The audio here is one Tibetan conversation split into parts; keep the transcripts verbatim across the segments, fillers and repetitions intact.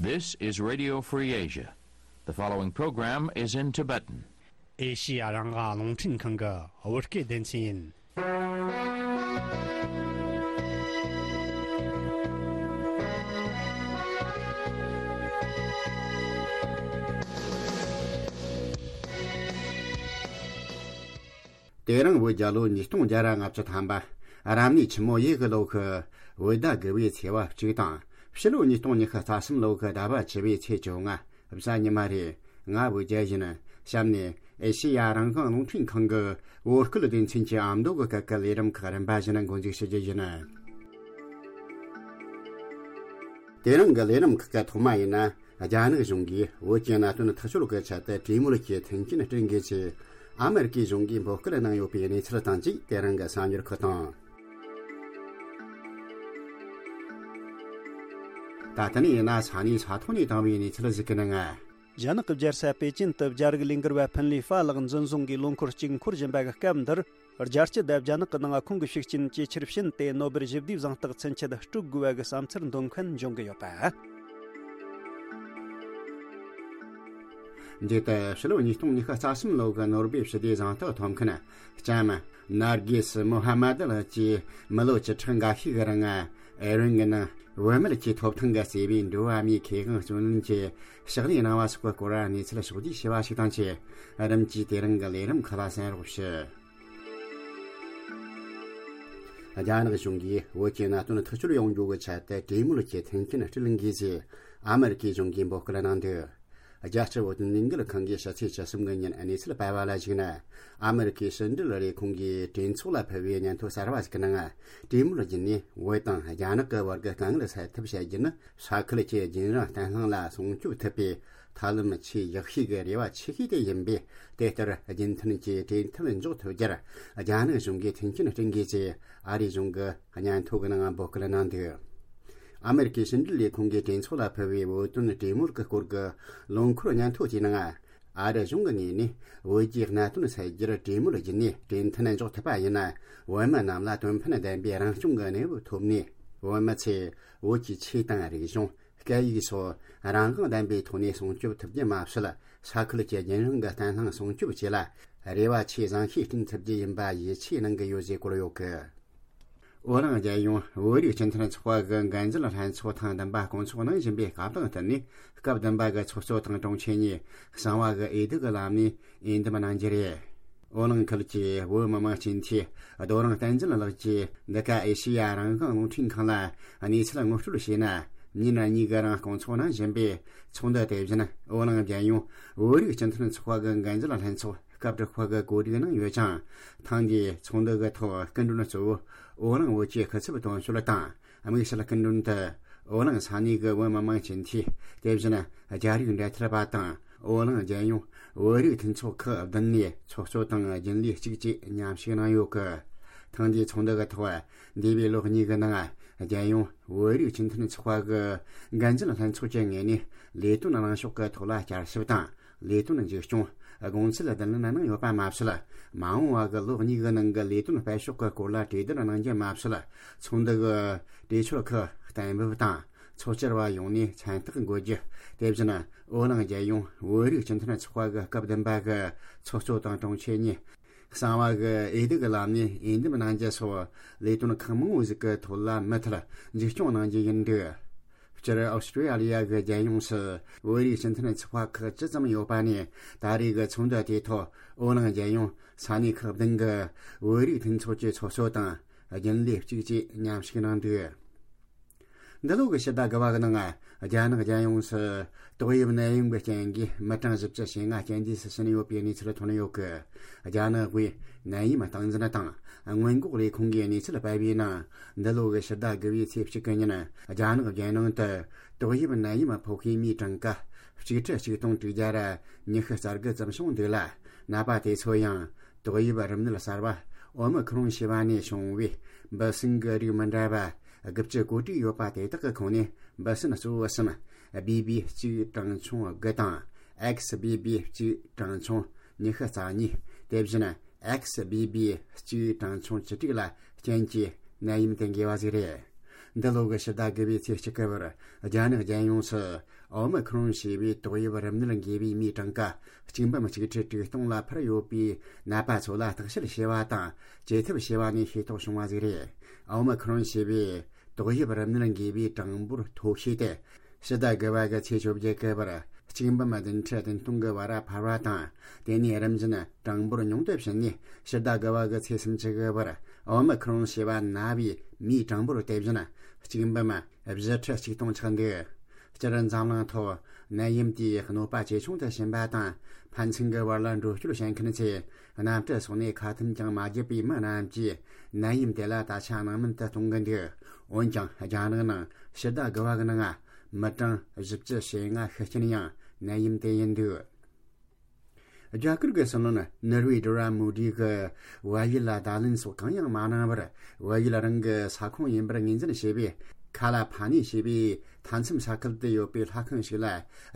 This is Radio Free Asia. The following program is in Tibetan. ཨེ་ཤི་ཡ་རང་དབང་རླུང་འཕྲིན་ཁང་གི་བོད་སྐད་སྡེ་ཚན་ཡིན། དེ་རིང་བོད་རྒྱལ་ལོ་ཉིས་སྟོང་བརྒྱ་ར་ལྔ་བཅུ་ཐམ་པ། རབ་གནས་ཆུ་མོ་ཡོས་གི་ལོ་ཁུ། བོད་ཟླ་དགུ་བའི་ཚེས་པ་གཅིག་དང་། ཕྱི་ལོ་ཉིས་སྟོང་ཉི་ཤུ་རྩ་གསུམ་ལོ་ཁུ་ཟླ་བ་བཅུ་བའི་ཚེས་བཅོ་ལྔ། གཟའ་ཉི་མ་རེད། ང་བོད་རྒྱལ་ཡིན། གཤམ་ནས་ཨེ་ཤེ་ཡ་རང་དབང་རླུང་འཕྲིན་ཁང་གི་བོད་སྐད་སྡེ་ཚན་གྱི་ཨ་མདོ་གི་སྐད་ཀྱི་ལས་རིམ་ཁག་རིམ་པ་བཞིན་འགོ་འཛུགས་ཞུ་རྒྱུ་ཡིན། དེ་རིང་གི་ལས་རིམ་ཁག་གི་ཐོག་མ་ཡིན་ན། རྒྱ་ནག་གཞུང་གིས་བོད་ཀྱི་གནད་དོན་ཐག་གཅོད་ཀྱི་ཆེད་དུ་གྲོས་མོལ་གྱི་མཐུན་རྐྱེན་སྤྲོད་མཁན་ཆེད། ཨ་མེ་རི་ཀའི་གཞུང་གིས་འབོད་སྐུལ་གནང་ཡོད་པའི་གནས་ཚུལ་དང་བཅས། དེ་རིང་གི་གསར་འགྱུར་ཁག་དང་། ད་ལྟ་ནས་ཡིན་ན་ས་གནས་ས་ཐོག་ནས་བཏང་བའི་གནས་ཚུལ་ཞིག་གི་ནང་། རྒྱ་ནག་གི་རྒྱལ་ས་པེ་ཅིན་དུ་རྒྱ་རིགས་ལས་འགུལ་བ་ཕིན་ལི་ཧྥ་ལགས་འཛིན་བཟུང་གིས་ལོ་འཁོར་གཅིག་འཁོར་བཞིན་པ་གི་སྐབས་འདིར། རྒྱལ་སྤྱི་དང་རྒྱ་ནག་གི་ནང་ཁོང་གི་ཤུགས་རྐྱེན་ཇེ་ཆེར་ཕྱིན་ཏེ། ནོ་སྦེལ་ཞི་བདེའི་གཟེངས་རྟགས་ཚུན་ཆད་སྤྲོད་དགོས་པ་གི་བསམ་ཚུལ་འདོན་མཁན་འབྱུང་གི་ཡོད་པ། འདི་ལྟར་ཕྱི་ལོ་ཉིས་སྟོང་ཉི་ཤུ་རྩ་གསུམ་ལོ་གི་ནོ་སྦེལ་ཞི་བདེའི་གཟེངས་རྟགས་ཐོབ་མཁན་ལྕམ་ནར་གི་སི་མོ་ཧ་མ་དི་ལགས་ཀྱིས་མི་ལོ་བཅུ་ཕྲག་འགའ་ཤས་ཀྱི་རིང་ཨེ་རན་གྱི་ནང་བུད་མེད་ཀྱི་ཐོབ་ཐང་གི་བརྩེ་བའི་འགྲོ་བ་མིའི་ཁེ་དབང་བརྩོན་ལེན་གྱི་ཕྱག་ལས་གནང་བ་སོགས་ཀྱི་སྐོར་གནས་ཚུལ་ཕྱོགས་བསྡུས་ཞུ་བ་ཞིག་དང་བཅས། རིམ་གྱིས་དེ་རིང་གི་ལས་རིམ་ཁག་ལ་གསན་རོགས་ཞུ། རྒྱ་ནག་གཞུང་གིས་བོད་ཀྱི་གནད་དོན་ཐག་གཅོད་ཡོང་རྒྱུ་གི་ཆེད་དུ་གྲོས་མོལ་གྱི་མཐུན་རྐྱེན་སྤྲོད་དགོས་ཞེས་ཨ་མེ་རི་ཀའི་གཞུང་གིས་འབོད་སྐུལ་གནང་འདུག། རྒྱལ་སྤྱི་བོད་དོན་ལས་འགུལ་ཁང་གིས་ཕྱི་ཚེས་བཅུ་གསུམ་གི་ཉིན་གནས་ཚུལ་སྤེལ་བ་ལ་གཞིགས་ན། ཨ་མེ་རི་ཀའི་ཕྱི་འབྲེལ་ལས་ཁུངས་ཀྱིས་གྲོས་ཚོགས་ལ་ཕུལ་བའི་སྙན་ཐོ་གསར་བ་ཞིག་གི་ནང་། གྲོས་མོལ་བརྒྱུད་ནས་བོད་དང་རྒྱ་ནག་གི་བར་གྱི་དཀའ་ངལ་སེལ་ཐབས་བྱ་རྒྱུ་ནི། ས་ཁུལ་གྱི་རྒྱུན་རིང་བརྟན་ལྷིང་ལ་སྲུང་སྐྱོབ་ཐུབ་པའི་ཐབས་ལམ་ཆེས་ཡག་ཤོས་ཀྱི་རེ་བ་ཆེ་ཤོས་དེ་ཡིན་པས། དེ་ལྟར་རྒྱུན་མཐུད་ཀྱིས་གྲོས་མཐུན་འཇོག་ཐུབ་རྒྱུར་རྒྱ་ནག་གཞུང་གིས་མཐུན་རྐྱེན་སྤྲད་དགོས་ཞེས་ཨ་རིའི་གཞུང་གི་སྙན་ཐོ་གི་ནང་འབོད་སྐུལ་གནང་འདུག། ཨ་མེ་རི་ཀའི་ཕྱི་འབྲེལ་ལས་ཁུངས་ཀྱིས་གྲོས་ཚོགས་ལ་ཕུལ་བའི་བོད་དོན་གྲོས་མོལ་གྱི་སྐོར་གྱི་ལོ་འཁོར་སྙན་ཐོ་དེའི་ནང་། ཨ་རི་གཞུང་གི་ངོས་ནས་བོད་ཀྱི་གནད་དོན་སེལ་རྒྱུར་གྲོས་མོལ་བརྒྱུད་ནས་གྲོས་མཐུན་འཇོག་ཐུབ་པ་ཡིན་ན། བོད་མི་རྣམས་ལ་དོན་ཕན་ལྡན་པའི་རང་སྐྱོང་གི་གནས་བབ་ཐོབ་ནས། བོད་མི་ཚོས་བོད་ཀྱི་ཆོས་དང་རིག་གཞུང་། སྐད་ཡིག་སོགས་རང་དབང་ལྡན་པའི་ཐོག་ནས་སྲུང་སྐྱོབ་ཐུབ་རྒྱུ་མ་ཟད། ས་ཁུལ་གྱི་རྒྱུན་རིང་གི་བརྟན་ལྷིང་སྲུང་སྐྱོབ་བཅས་ལ་རེ་བ་ཆེས་བཟང་ཤོས་བསྐྲུན་ཐུབ་རྒྱུ་ཡིན་པ་ཡིད་ཆེས་གནང་གི་ཡོད་ཅེས་བཀོད་ཡོད་གི། བོད་རང་རྒྱལ་ཡོངས་བོད་རིགས་སྤྱི་མཐུན་ཚོགས་པ་གི་འགན་འཛིན་ལྷན་ཚོགས་ཐེངས་བདུན་པ་སྐོང་ཚོགས་གནང་བཞིན་པའི་སྐབས་དང་བསྟུན་ནས། སྐབས་བདུན་པ་གི་ཚོགས་གཙོ་དང་དྲུང་ཆེ་གཉིས་གསང་བ་གི་འོས་བསྡུ་གི་ལམ་ནས་འོས་འདེམས་གནང་རྒྱུ་རེད། ཨོ་གླིང་ཁུལ་གྱི་བོད་མི་མང་སྤྱི་འཐུས་རྡོ་རིང་བསྟན་འཛིན་ལགས་ཀྱིས་འདི་ག་ཨེ་ཤེ་ཡ་རང་དབང་རླུང་འཕྲིན་ཁང་ལ་གནས་ཚུལ་ངོ་སྤྲོད་བྱས་ན། ཉིན་གཉིས་ཀྱི་རིང་སྐོང་ཚོགས་གནང་བཞིན་པའི་ཚོགས་འདུ་དེ་བཞིན་ཨོ་གླིང་རྒྱལ་ཡོངས་བོད་རིགས་སྤྱི་མཐུན་ཚོགས་པ་གི་འགན་འཛིན་ལྷན་ཚོགས་སྐབས་དྲུག་པ་གི་གོ་སྒྲིག་གནང་ཡོད་ཅིང་། ཐེངས་འདིའི་ཚོགས་འདུ་གི་ཐོག་སྐུ་མགྲོན་གཙོ་བོ་ཨོ་གླིང་བོད་ཀྱི་སྐུ་ཚབ་དོན་གཅོད་དང་། དམིགས་བསལ་སྐུ་མགྲོན་དུ་ཨོ་གླིང་ས་གནས་ཀྱི་བོད་མི་མང་སྤྱི་འཐུས། དེ་བཞིན་རྒྱ་རིགས་འབྲེལ་མཐུད་པ་དང་། ཨོ་གླིང་རྒྱལ་ཡོངས་བོད་རིགས་མཐུན་ཚོགས་ཁག་བདུན་ནས་ཚོགས་གཙོ་དང་རྒྱུན་ལས་གཅིག་བཅས་མཉམ་ཞུགས་གནང་ཡོད་གི། ཐེངས་འདིའི་ཚོགས་འདུ་གི་ཐོག་འདས་པའི་ལོ་གཉིས་ཀྱི་ནང་རྒྱལ་ཡོངས་བོད་རིགས་སྤྱི་མཐུན་ཚོགས་པ་གི་འགན་འཛིན་ལྷན་ཚོགས་ཀྱི་ངོས་ནས་ལས་དོན་གནང་ཕྱོགས་ཀྱི་ཐོག་ལ་བསྐྱར་ཞིབ་དང་། ལས་དོན་འཛུགས་སྐྱོང་། དགོངས་ཚུལ་བསྡུ་ལེན་གནང་ཡོད་པ་མ་ཟད། མ་འོངས་པ་གི་ལོ་གཉིས་ཀྱི་ནང་གི་ལས་དོན་སྤེལ་ཕྱོགས་ཀྱི་སྐོར་ལ་གྲོས་བསྡུར་གནང་རྒྱུ་མ་ཟད། ཚོགས་འདུ་གི་གྲོས་ཆོད་ཁག་གཏན་འབེབས་དང་། ཚོགས་བཅར་བ་ཡོངས་ནས་མཚན་རྟགས་འགོད་རྒྱུ། དེ་བཞིན་ཨོ་གླིང་རྒྱལ་ཡོངས་བོད་རིགས་སྤྱི་མཐུན་ཚོགས་པ་གི་སྐབས་བདུན་པ་གི་ཚོགས་གཙོ་དང་དྲུང་ཆེ་གཉིས་གསང་བ་གི་འོས་བསྡུ་གི་ལམ་ནས་འོས་འདེམས་གནང་རྒྱུ་སོགས་ལས་དོན་ཁག་མང་བོ་ཞིག་གི་ཐོག་ལ་མུ་མཐུད་འཛུགས་སྐྱོང་གནང་རྒྱུ་ཡིན་འདུག། སྤྱིར་ཨོ་སི་ཀྲི་ཡ་ལི་ཡ་གི་རྒྱལ་ཡོངས་སུ་བོད་རིགས་སྤྱི་མཐུན་ཚོགས་པ་ཁག་ཅི་ཙམ་ཡོད་པ་ནས། ད་རེས་ཀྱི་ཚོགས་འདུ་དེའི་ཐོག་ཨོ་གླིང་རྒྱལ་ཡོངས་ས་གནས་ཁག་བདུན་གྱི་བོད་རིགས་མཐུན་ཚོགས་ཀྱི་ཚོགས་གཙོ་དང་རྒྱུན་ལས་གཅིག་བཅས་མཉམ་ཞུགས་གནང་འདུག། འདི་ལོ་གི་ཕྱི་ཟླ་དགུ་པ་གི་ནང་རྒྱ་ནག་རྒྱལ་ཡོངས་སུ་ཏོག་དབྱིབས་ནད་ཡམས་ཀྱི་རྐྱེན་གྱིས་མི་གྲངས་བཞི་བཅུ་ཞེ་ལྔ་རྐྱེན་འདས་སུ་ཕྱིན་ཡོད་པའི་གནས་ཚུལ་ཐོན་ཡོད་གི། རྒྱ་ནག་དབུས་ནད་ཡམས་སྟངས་འཛིན་དང་སྔོན་འགོག་ལས་ཁུངས་ཀྱིས་གནས་ཚུལ་སྤེལ་བའི་ནང་། འདི་ལོ་གི་ཕྱི་ཟླ་དགུ་པའི་ཚེས་གཅིག་གི་ཉིན་རྒྱ་ནག་རྒྱལ་ནང་དུ་ཏོག་དབྱིབས་ནད་ཡམས་ཕོག་མཁན་མིའི་གྲངས་ཀ་གཅིག་ཁྲི་གཅིག་སྟོང་དྲུག་བརྒྱ་ར་ཉི་ཤུ་རྩ་དགུ་ཙམ་བྱུང་འདུག་ལ། ནད་པ་དེ་ཚོ་ཡང་ཏོག་དབྱིབས་རིམས་ནད་གསར་པ་ཨོ་མི་ཁི་རོན་ཞེས་པ་ནས་བྱུང་བའི་འབུ་སྲིན་གྱི་རིགས་མི་འདྲ་བ་དགུ་བཅུ་གོ་དྲུག་ཡོད་པ་དེ་དག་གི་ཁོངས་ནས་འབུ་སྲིན་གཙོ་བོ་གསུམ། བྷི་བྷི་གཅིག་གྲངས་ཆུང་དགུ་དང་། ཨེག་སི་བྷི་བྷི་གཅིག་གྲངས་ཆུང་ཉི་ཤུ་རྩ་གཉིས། དེ་བཞིན་ཨེག་སི་བྷི་བྷི་གཅིག་གྲངས་ཆུང་བཅུ་དྲུག་ལ་རྐྱེན་གྱིས་ནད་ཡམས་དེ་འགོས་པ་ཞིག་རེད། འདི་ལོ་གི་ཕྱི་ཟླ་དགུ་པའི་ཚེས་གཅིག་གི་བར་རྒྱ་ནག་རྒྱལ་ཡོངས་སུ་ཨོ་མི་ཁྲོན་ཞེས་པའི་ཏོག་དབྱིབས་རིམས་ནད་འགོས་པའི་མིའི་གྲངས་ཀ་གཅིག་འབུམ་གཅིག་ཁྲི་དྲུག་སྟོང་ལ་འཕར་ཡོད་པའི་ནད་པ་ཚོ་ལ་བརྟག་དཔྱད་བྱས་པ་དང་བཅོས་ཐབས་བྱས་པ་ནས་ཤེས་རྟོགས་བྱུང་བ་ཟིག་རེད། ཨོ་མི་ཁྲོན་ཞེས་པའི་ཏོག་དབྱིབས་རིམས་ནད་འགོས་པའི་གྲངས་འབོར་མཐོ་ཤོས་དེ། ཕྱི་ཟླ་དགུ་པ་གི་ཚེས་བཅོ་བརྒྱད་གི་བར་གཅིག་འབུམ་བདུན་ཁྲི་བདུན་སྟོང་གི་བར་འཕར་བ་དང་། དེ་ནས་རིམ་བཞིན་གྲངས་འབོར་ཉུང་དུ་ཕྱིན་ནས། ཕྱི་ཟླ་དགུ་པ་གི་ཚེས་སུམ་ཅུ་གི་བར་ཨོ་མི་ཁྲོན་ཞེས་པ་ན་བའི་མིའི་གྲངས་འབོར་དེ་བཞིན་གཅིག་འབུམ་བཞི་ཁྲི་གཅིག་སྟོང་ཆགས་འདུག་སྤྱིར་འཛམ་གླིང་ཐོག་ནད་ཡམས་དེའི་གནོད་པ་ཇེ་ཆུང་དུ་ཕྱིན་པ་དང་། ཕན་ཚུན་གྱི་བར་ལ་འགྲོ་སྐྱོད་བྱེད་མཁན་ཚོས་གནམ་གྲུ་སོགས་ནས་ཁ་ཐུམ་ཀྱང་མ་བརྒྱབ་པའི་མི་རྣམས་ཀྱིས་ནད་ཡམས་དེ་ལ་ད་ཆ་སྣང་མེད་དུ་གཏོང་གི་འདུག་འོན་ཀྱང་རྒྱ་ནག་ནང་ཕྱི་ཟླ་དགུ་པ་གི་ནང་མི་གྲངས་བཞི་བཅུ་ཞེ་ལྔ་ཤི་རྐྱེན་ཡང་ནད་ཡམས་དེ་ཡིན་འདུག་རྒྱ་གར་གྱི་སྲིད་བློན་ནོར་བྷེ་ནཱ་རེནྡྲ་མོ་དི་གིས་བལ་ཡུལ་ལ་བརྡ་ལན་སོགས་གང་ཡང་མ་གནང་བར། བལ་ཡུལ་རང་གི་ས་ཁོངས་ཡིན་པར་ངོས་འཛིན་བྱས་པའི་ཁ་ལ་ཕ་ནི་ཞེས་པའི་མཐའ་མཚམས་ས་ཁུལ་དུ་ཡོད་པའི་ལྷ་ཁང་ཞིག་ལ་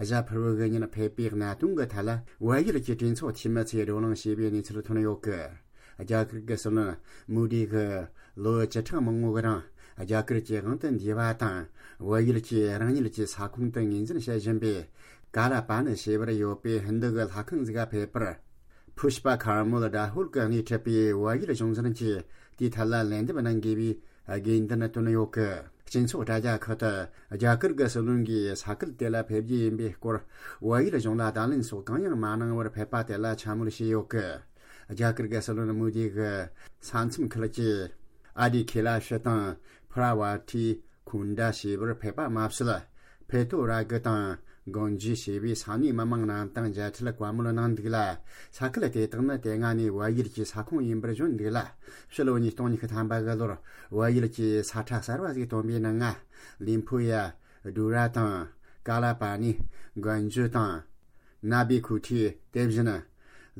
གཟའ་ཕུར་བུ་གི་ཉིན་ཕེབས་པའི་གནད་དོན་གྱི་ཐད་ལ། བལ་ཡུལ་གྱི་གྲོས་ཚོགས་འཐུས་མི་ཚོས་བགྲོ་གླེང་བྱས་པའི་གནས་ཚུལ་ཐོན་ཡོད་གི། རྒྱ་གར་གྱི་སྲིད་བློན་མོ་དི་གིས་ལོ་བཅུ་ཕྲག་མང་པོ་གི་རིང་རྒྱ་གར་གྱི་དབང་དུ་འདུས་པ་དང་། བལ་ཡུལ་གྱི་རང་ཉིད་ཀྱི་ས་ཁོངས་དུ་ངོས་འཛིན་བྱེད་བཞིན་པའི་ཀ་ལ་པ་ནི་ཞེས་པར་ཡོད་པའི་ཧིན་རྡུ་གི་ལྷ་ཁང་ཟིག་ག་ཕེབས་པར། ཕུཤ་པ་ཁར་མོལ་ཌ་ཧུལ་གྱིས་སྣེ་ཁྲིད་པའི་བལ་ཡུལ་གཞུང་ཚབ་ཀྱིས་དེའི་ཐད་ལ་ལན་འདེབས་གནང་དགོས་པའི་དགོས་འདུན་བཏོན་ཡོད་གི། སྤྱི་ཚོགས་དྲ་རྒྱ་ཁག་ཏུ་རྒྱ་གར་གྱི་སྲིད་བློན་གྱིས་ས་ཁུལ་དེ་ལ་ཕེབས་རྒྱུ་ཡིན་པའི་སྐོར་བལ་ཡུལ་གཞུང་ལ་བརྡ་ལན་སོགས་གང་ཡང་མ་གནང་བར་ཕེབས་པ་དེ་ལ་འཕྱ་སྨོད་བྱས་ཡོད་གི། རྒྱ་གར་གྱི་སྲིད་བློན་མོ་དི་གིས་ས་མཚམས་ཁུལ་གྱི་ཨ་དི་ཁེ་ལ་ཤི་དང་ཕུ་ར་ཝ་ཐི་ཁུན་ཌ་ཞེས་པར་ཕེབས་པ་མ་ཟད། ཕེ་ཐོ་ར་གི་དང་གོན་ཇི་ཞེས་པའི་ས་གནས་མི་མང་རྣམས་དང་མཇལ་འཕྲད་བཀའ་མོལ་གནང་འདུག་ལ། ས་ཁུལ་དེ་དག་ནི་དེ་སྔ་ནས་བལ་ཡུལ་གྱི་ས་ཁོངས་ཡིན་པར་བརྗོད་འདུག་ལ། ཕྱི་ལོ་ཉིས་སྟོང་ཉི་ཤུ་ཐམ་པ་གི་ལོར་བལ་ཡུལ་གྱི་ས་ཁྲ་གསར་བ་ཞིག་བཏོན་པའི་ནང་ང་། ལིམ་ཕུ་ཡ། ཌུ་ར་དང་། ཀ་ལ་པ་ནི། གོན་ཇུ་དང་། ན་བི་ཁུ་ཐི། དེ་བཞིན།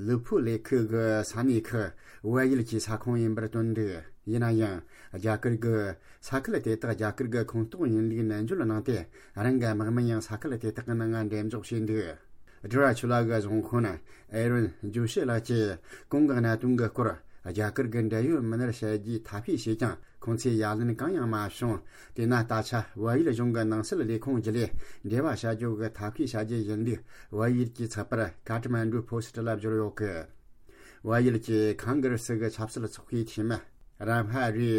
ལུ་ཕུ་ལེ་ཁུ་གི་ས་གནས་ཁག་བལ་ཡུལ་གྱི་ས་ཁོངས་ཡིན་པར་བཏོན་འདུག་ཡིན་ན་ཡང་། རྒྱ་གར་གྱི་ས་ཁུལ་དེ་དག་རྒྱ་གར་གྱི་ཁོངས་གཏོགས་ཡིན་ལུགས་ནན་བརྗོད་གནང་སྟེ། རང་གི་དམག་མི་ཡང་ས་ཁུལ་དེ་དག་གི་ནང་ང་འགྲེམས་འཇོག་བྱས་འདུག་ཌུ་ར་ཆུ་ལ་གི་གཞུང་དཔོན་ཨེ་རོན་ཇུ་ཤི་ལགས་ཀྱིས་གོང་གི་གནད་དོན་གྱི་སྐོར་རྒྱ་གར་གྱི་འབྲེལ་ཡོད་མི་སྣར་བཤད་རྒྱུའི་ཐབས་ཤེས་བྱས་ཀྱང་། ཁོང་ཚོས་ཡ་ལན་གང་ཡང་མ་བྱུང་། དེས་ན་ད་ཆ་བལ་ཡུལ་གཞུང་གི་ནང་སྲིད་ལས་ཁུངས་བརྒྱུད་ལས་འབྲེལ་བ་བྱ་རྒྱུ་གི་ཐབས་ཤེས་བྱ་རྒྱུ་ཡིན་ལུགས་བལ་ཡུལ་གྱི་ཚགས་པར་ཀ་ཐ་མན་ཌུ་ཕོ་སི་ཊི་ལ་བསྒྱུར་ཡོད་གི། བལ་ཡུལ་གྱི་ཁང་གར་སི་གི་ཆབ་སྲིད་ཚོགས་པའི་འཐུས་མི་རམ་ཧ་རི་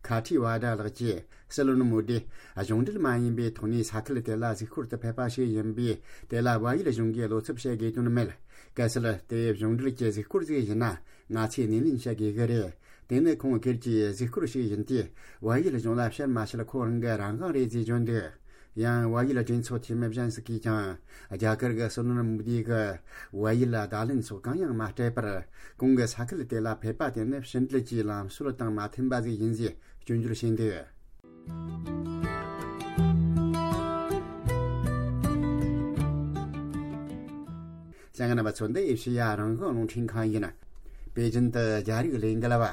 ཁ་ཐི་ཝ་ཌ་ལགས་ཀྱིས་སྲིད་བློན་མོ་དི་གཞུང་འབྲེལ་མ་ཡིན་པའི་ཐོག་ནས་ས་ཁུལ་དེ་ལ་གཟིགས་སྐོར་དུ་ཕེབས་པ་ཞིག་ཡིན་པས། དེ་ལ་བལ་ཡུལ་གཞུང་གིས་བློ་འཚབ་བྱེད་དགོས་དོན་མེད། གལ་སྲིད་དེ་གཞུང་འབྲེལ་གྱི་གཟིགས་སྐོར་ཞིག་ཡིན་ན། ང་ཚོས་སྣེ་ལེན་བྱེད་དགོས་ཀྱི་རེད། དེ་ནི་ཁོང་སྒེར་གྱི་གཟིགས་སྐོར་ཞིག་ཡིན་ཏེ། བལ་ཡུལ་གཞུང་ལ་བཤད་མ་བཤད་ཁོ་རང་གི་རང་དབང་རེད་ཅེས་བརྗོད་འདུག་ཡང་བལ་ཡུལ་གྲོས་ཚོགས་འཐུས་མི་གཞན་ཞིག་གིས་ཀྱང་རྒྱ་གར་གྱི་སྲིད་བློན་མོ་དི་གིས་བལ་ཡུལ་ལ་བརྡ་ལན་སོགས་གང་ཡང་མ་སྤྲད་པར། གོང་གི་ས་ཁུལ་དེ་ལ་ཕེབས་པ་དེ་ནི་ཕྱི་འབྲེལ་གྱི་ལམ་སྲོལ་དང་མ་མཐུན་པ་ཞིག་ཡིན་ཞེས་སྐྱོན་བརྗོད་བྱས་འདུག་ལྷན་རྒྱས་རྣམ་པ་ཚོ། འདི་ཨེ་ཤེ་ཡ་རང་དབང་རླུང་འཕྲིན་ཁང་ཡིན། པེ་ཅིན་དུ་རྒྱ་རིགས་ལས་འགུལ་བ་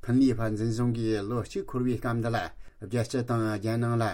ཕིན་ལི་ཧྥ་འཛིན་བཟུང་གིས་ལོ་གཅིག་འཁོར་བའི་སྐབས་འདི་ལ། རྒྱལ་སྤྱི་དང་རྒྱལ་ནང་ལ་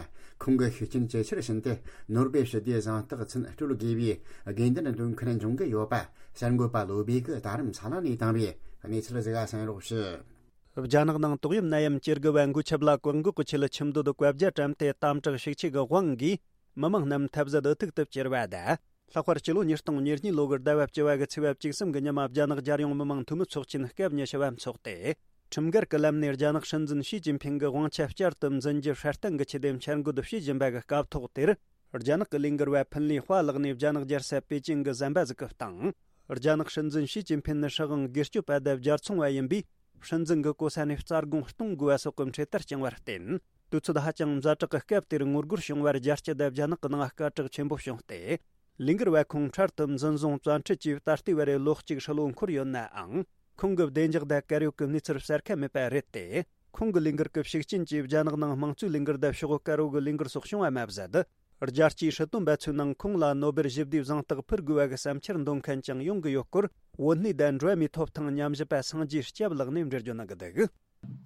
ཁོང་གི་ཤུགས་རྐྱེན་ཇེ་ཆེར་ཕྱིན་ཏེ། ནོ་སྦེལ་ཞི་བདེའི་གཟེངས་རྟགས་མཚོན་སྤྲོད་དགོས་པའི་དགོས་འདུན་འདོན་མཁན་འབྱུང་གི་ཡོད་པ། གསར་འགོད་པ་བློ་བྷེ་གིས་ད་རུང་ས་ལ་ནས་བཏང་བའི་གནས་ཚུལ་ཞིག་གསན་རོགས་ཞུ། རྒྱ་ནག་ནང་ཏོག་དབྱིབས་ནད་ཡམས་ཇེ་རྒུད་པ་འགོས་ཆེད་ལ་བཀག་འགོག་གི་ཆེད་ཁྱིམ་སྡོད་བཀའ་རྒྱ་བཀྲམ་སྟེ། དམ་དྲག་ཤུགས་ཆེ་གི་དབང་གིས་མི་མང་རྣམས་ཐབས་ཟད་འུ་ཐུག་ཏུ་གྱུར་བ་དང་། ལྷག་པར་སྤྱི་ལོ་ཉིས་སྟོང་ཉེར་གཉིས་ལོ་གི་ཟླ་བ་བཅུ་བ་གི་ཚེས་པ་བཅུ་གསུམ་གི་ཉིན་མ། རྒྱ་ནག་རྒྱལ་ཡོངས་མི་མང་འཐུས་མི་ཚོགས་ཆེན་སྐབས་ཉི་ཤུ་བ་འཚོགས་ཏེ། ཁྲིམས་འགལ་གྱི་ལམ་ནས་རྒྱ་ནག་སྲིད་འཛིན་ཞི་ཅིན་ཕིང་གི་དབང་ཆ་བསྐྱར་དུ་འཛིན་རྒྱུ་སྲ་བརྟན་གྱི་ཆེད་དུ་འཆར་འགོད་བྱེད་བཞིན་པ་གི་སྐབས་ཐོག་དེར། རྒྱ་ནག་གི་ལས་འགུལ་བ་ཕིན་ལི་ཧྭ་ལགས་ནས་རྒྱ་ནག་རྒྱལ་ས་པེ་ཅིང་གི་ཟམ་པ་ཟིག་གི་སྟེང་། རྒྱ་ནག་སྲིད་འཛིན་ཞི་ཅིན་ཕིང་ནི་སྲིད་དབང་སྒེར་གཅོད་པ་དང་རྒྱལ་ཚོང་བ་ཡིན་པས། སྲིད་འཛིན་གྱི་གོ་ས་ནས་རྩ་དགོངས་གཏོང་དགོས་པ་སོགས་ཀྱི་འཕྲེད་དར་བཅིངས་པར་བརྟེན། དུས་ཚོད་ཧ་ཅང་ཛ་དྲག་གི་སྐབས་དེར་ངོ་རྒོལ་བྱུང་བར། རྒྱལ་སྤྱི་དང་རྒྱ་ནག་གི་ནང་སྐད་གྲགས་ཆེན་པོ་བྱུང་སྟེ། ལས་འགུལ་བ་ཁོང་འཕྲལ་དུ་འཛིན་བཟུང་བཙན་ཁྲིད་ཀྱིས། ད་ལྟའི་བར་རེ་ལོ་གཅིག་ཧྲིལ་བོ་འཁོར་ཡོད་ནའང་། ཁོང་གི་བདེ་འཇགས་དང་དཀར་ཡོལ་གྱི་གནས་ཚུལ་གསལ་ཁ་མེད་པ་རེད་དེ། ཁོང་གི་ལས་འགུལ་གྱི་ཤུགས་རྐྱེན་གྱིས་རྒྱ་ནག་ནང་དམངས་གཙོའི་ལས་འགུལ་དང་ཕྱོགས་དཀར་པོ་གི་ལས་འགུལ་སོགས་བྱུང་བ་མ་ཟད། རྒྱལ་སྤྱིའི་སྲིད་དོན་པ་ཚོའི་ནང་ཁོང་ལ་ནོ་སྦེལ་ཞི་བདེའི་གཟེངས་རྟགས་ཕུལ་དགོས་པ་གི་བསམ་འཆར་འདོན་མཁན་ཀྱང་ཡོང་གི་ཡོད་སྐོར། བོད་གནས་དང་འགྲོ་བ་མིའི་ཐོབ་ཐང་ཉམས་ཞིབ་པ་སངས་རྒྱས་སྐྱབས་ལགས་ནས་འགྲེལ་བརྗོད་གནང་གི་འདུག་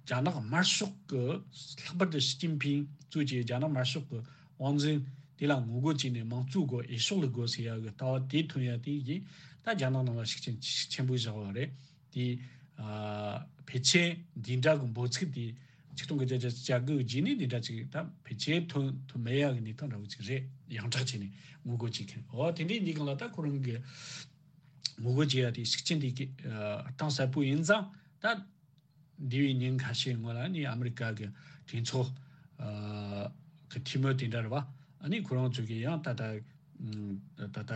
རྒྱ་ནག་དམར་ཤོག་གི། ལྷག་པར་དུ་ཞི་ཅིན་ཕིང་གཙོས་ཀྱི་རྒྱ་ནག་དམར་ཤོག་གི་དབང་འཛིན་དེ་ལ་ངོ་རྒོལ་བྱས་ནས། དམངས་གཙོའི་སྒོ་འོས་ཤོག་ལ་དགོས་ཟེར་ཡ་གི་ལྟ་བ་དེ་ཐོན་ཡ་དེ་ཡིན། ད་རྒྱ་ནག་ནང་ལ་ཤུགས་རྐྱེན་ཤུགས་ཆེན་པོ་བཞག་པ་རེད། དེ་ཨ་ཕལ་ཆེར་འདི་འདྲ་གི་འབོད་ཚིག་དེ་ ཆིག་སྟོང་དགུ་བརྒྱ་བརྒྱད་ཅུ་གྱ་དགུ་རྗེས་ནས་འདི་འདྲ་ཅིག་ད་ཕལ་ཆེར་ཐོན་ཐུབ་མེད་ཡག་གི་གནས་སྟངས་འདྲ་བོ་ཅིག་རེད། ཡོངས་གྲགས་བྱས་ནས་ངོ་རྒོལ་བྱེད་མཁན། འོ་དེ་འདྲའི་གནས་སྟངས་ལ་ད་ཁོ་རང་གི་ངོ་རྒོལ་བྱེད་ཡ་དེ་ཤུགས་རྐྱེན་དེ་གི་གཏིང་ཟབ་པོ་ཡིན་ཙང་། ད་འདས་པའི་ཉིན་ཁ་ཤས་སྔོན་ལ་ནི་ཨ་མི་རི་ཀ་གི་གྲོས་ཚོགས་གི་འཐུས་མི་དེ་འདྲ་རེད་བ། ཨ་ནི་ཁོ་རང་ཚོ་གི་ཡང་ད་ལྟ་ད་ལྟ་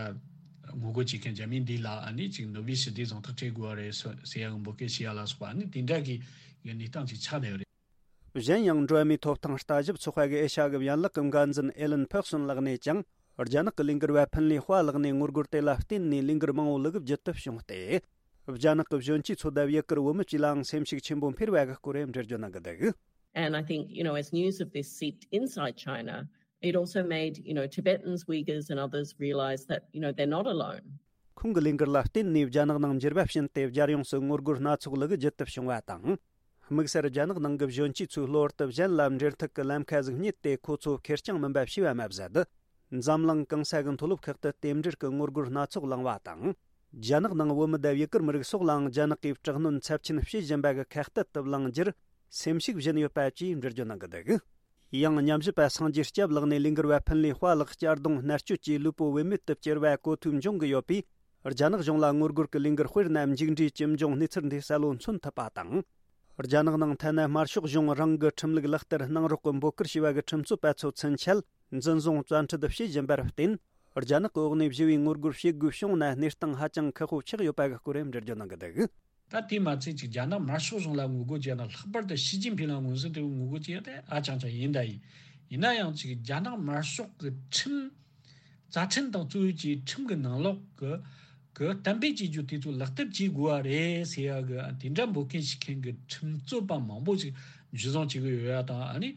ངོ་རྒོལ་བྱེད་མཁན་རྒྱ་མི་འདི་ལ་ཨ་ནི་ཅིག་ནོ་བེལ་ཞི་བདེའི་གཟེངས་རྟགས་སྤྲད་དགོས་པ་རེད་ཟེར་ཡ་གི་འབོད་སྐུལ་བྱེད་ཡ་ལ་སོགས་པ། ཨ་ནི་དེ་འདྲ་གི་གནས་སྟངས་ཅིག་ཆགས་བསྡད་ཡོད་རེད། གཞན་ཡང་འགྲོ་བ་མིའི་ཐོབ་ཐང་ལྟ་ཞིབ་ཚོགས་པ་གི་ཨེ་ཤ་ཡ་གི་ཡན་ལག་གི་འགན་འཛིན་ཨེ་ལན་ཕེག་སོན་ལགས་ནས་ཀྱང་རྒྱ་ནག་གི་ལས་འགུལ་བ་ཕིན་ལི་ཧྭ་ལགས་ནས་ངོ་རྒོལ་དེ་ལ་བརྟེན་ནས་ལས་འགུལ་མང་བོ་ལུག་གིབ་བརྒྱུད་དུ་བྱུང་སྟེ། རྒྱ་ནག་གི་གཞོན་སྐྱེས་ཚོ་དང་ཡུ་གུར་བུད་མེད་ཀྱི་ལའང་སེམས་ཤུགས་ཆེན་པོ་འཕེར་བ་གི་སྐོར་འགྲེལ་བརྗོད་གནང་གི་འདུག And I think, you know, as news of this seeped inside China, it also made, you know, Tibetans, Uyghurs and others realize that, you know, they're not alone. ཁོང་གི་ལས་འགུལ་ལ་བརྟེན་ནས་རྒྱ་ནག་ནང་འགྱུར་བ་ཕྱིན་ཏེ་རྒྱལ་ཡོངས་སུ་ངོ་རྒོལ་སྣ་ཚོགས་ལུག་གིབ་བརྒྱུད་དུ་བྱུང་བ་དང་། དམིགས་བསལ་རྒྱ་ནག་ནང་གི་གཞོན་སྐྱེས་ཚོས་གློ་བུར་དུ་གཞན་ལ་འབྲེལ་མཐུད་ཀྱི་ལམ་ཁ་ཟིག་རྙེད་དེ་ཁོ་ཚོ་ཁེར་རྐྱང་མིན་པ་ཤེས་པ་མ་ཟད། འཛམ་གླིང་གང་ས་གི་མཐོ་སློབ་ཁག་ཏུ་རྟེན་འབྲེལ་གྱི་ངོ་རྒོལ་སྣ་ཚོགས་བསླངས་བ་དང་། རྒྱ་ནག་ནང་བུད་མེད་དང་ཡུ་གུར་མི་རིགས་སོགས་ལའང་རྒྱ་ནག་གིས་དྲག་གནོན་ཚབས་ཆེན་བྱེད་བཞིན་པ་གི་ཁ་གཏད་དུ་བླངས་རྒྱུར་སེམས་ཤུགས་སྦྱིན་ཡོད་པ་བཅས་འགྲེལ་བརྗོད་གནང་གི་འདུག་ཡང་ཉམས་ཞིབ་པ་སངས་རྒྱས་སྐྱབས་ལགས་ནས་ལས་འགུལ་བ་ཕིན་ལི་ཧྭ་ལགས་གཅར་རྡུང་མནར་གཅོད་ཀྱིས་ལུས་པོ་བུད་མེད་དུ་བསྐྱུར་བ་གོ་ཐོས་འབྱུང་གི་ཡོད་པས། རྒྱ་ནག་གཞུང་ལ་ངོ་རྒོལ་གྱི་ལས་འགུལ་དཔེར་ན་མཇུག་འབྲས་ཇི་འབྱུང་གནས་ཚུལ་འདི་གསལ་བོ་མཚོན་ཐུབ་པ་དང་། རྒྱ་ནག་ནང་ཐ་ན་དམར་ཤོག་གཞུང་རང་གི་ཁྲིམས་ལུགས་ལག་བསྟར་གནང་རོགས་ཀྱི་འབོད་སྐུལ་བྱས་པ་གི་ཁྲིམས་རྩོད་པ་ཚོ་ཚུན་ཆད་འཛིན་བཟུང་བཙན་ཁྲིད་བྱེད་བཞིན་པར་བརྟེན། རྒྱ་ནག་གི་འོག་ནས་ཞི་བའི་ངོ་རྒོལ་བྱེད་དགོས་བྱུང་ན་གནས་སྟངས་ཧ་ཅང་ཁག་པོ་ཆགས་ཡོད་པ་གི་སྐོར་འགྲེལ་བརྗོད་གནང་གི་འདུག་ད་དེ་མ་ཚད་ཅིག་རྒྱ་ནག་དམར་ཤོག་གཞུང་ལ་ངོ་རྒོལ་བྱས་ན། ལྷག་པར་དུ་ཞི་ཅིན་ཕིང་ལ་མངོན་གསལ་དོད་པོས་ངོ་རྒོལ་བྱས་ཏེ་ཧ་ཅང་ཅང་ཡིན་ད་ཡིན། ཡིན་ན་ཡང་ཅིག་རྒྱ་ནག་དམར་ཤོག་གི་ཁྲིམས། རྩ་ཁྲིམས་དང་གཙོ་བོ་གྱི་ཁྲིམས་ཀྱི་ནང་ལོགས་ཀྱི་གི་གཏན་འབེབས་བྱེད་རྒྱུ་དེ་ཚོ་ལག་བསྟར་བྱེད་དགོས་པ་རེད་ཟེར་ཡ་གི་དེ་འདྲ་འབོད་མཁན་བྱེད་མཁན་གྱི་ཁྲིམས་རྩོད་པ་མང་པོ་ཞིག་འཇུ་བཟུང་བྱེད་ཀྱི་ཡོད་ཡ་དང་། ཨ་ནི་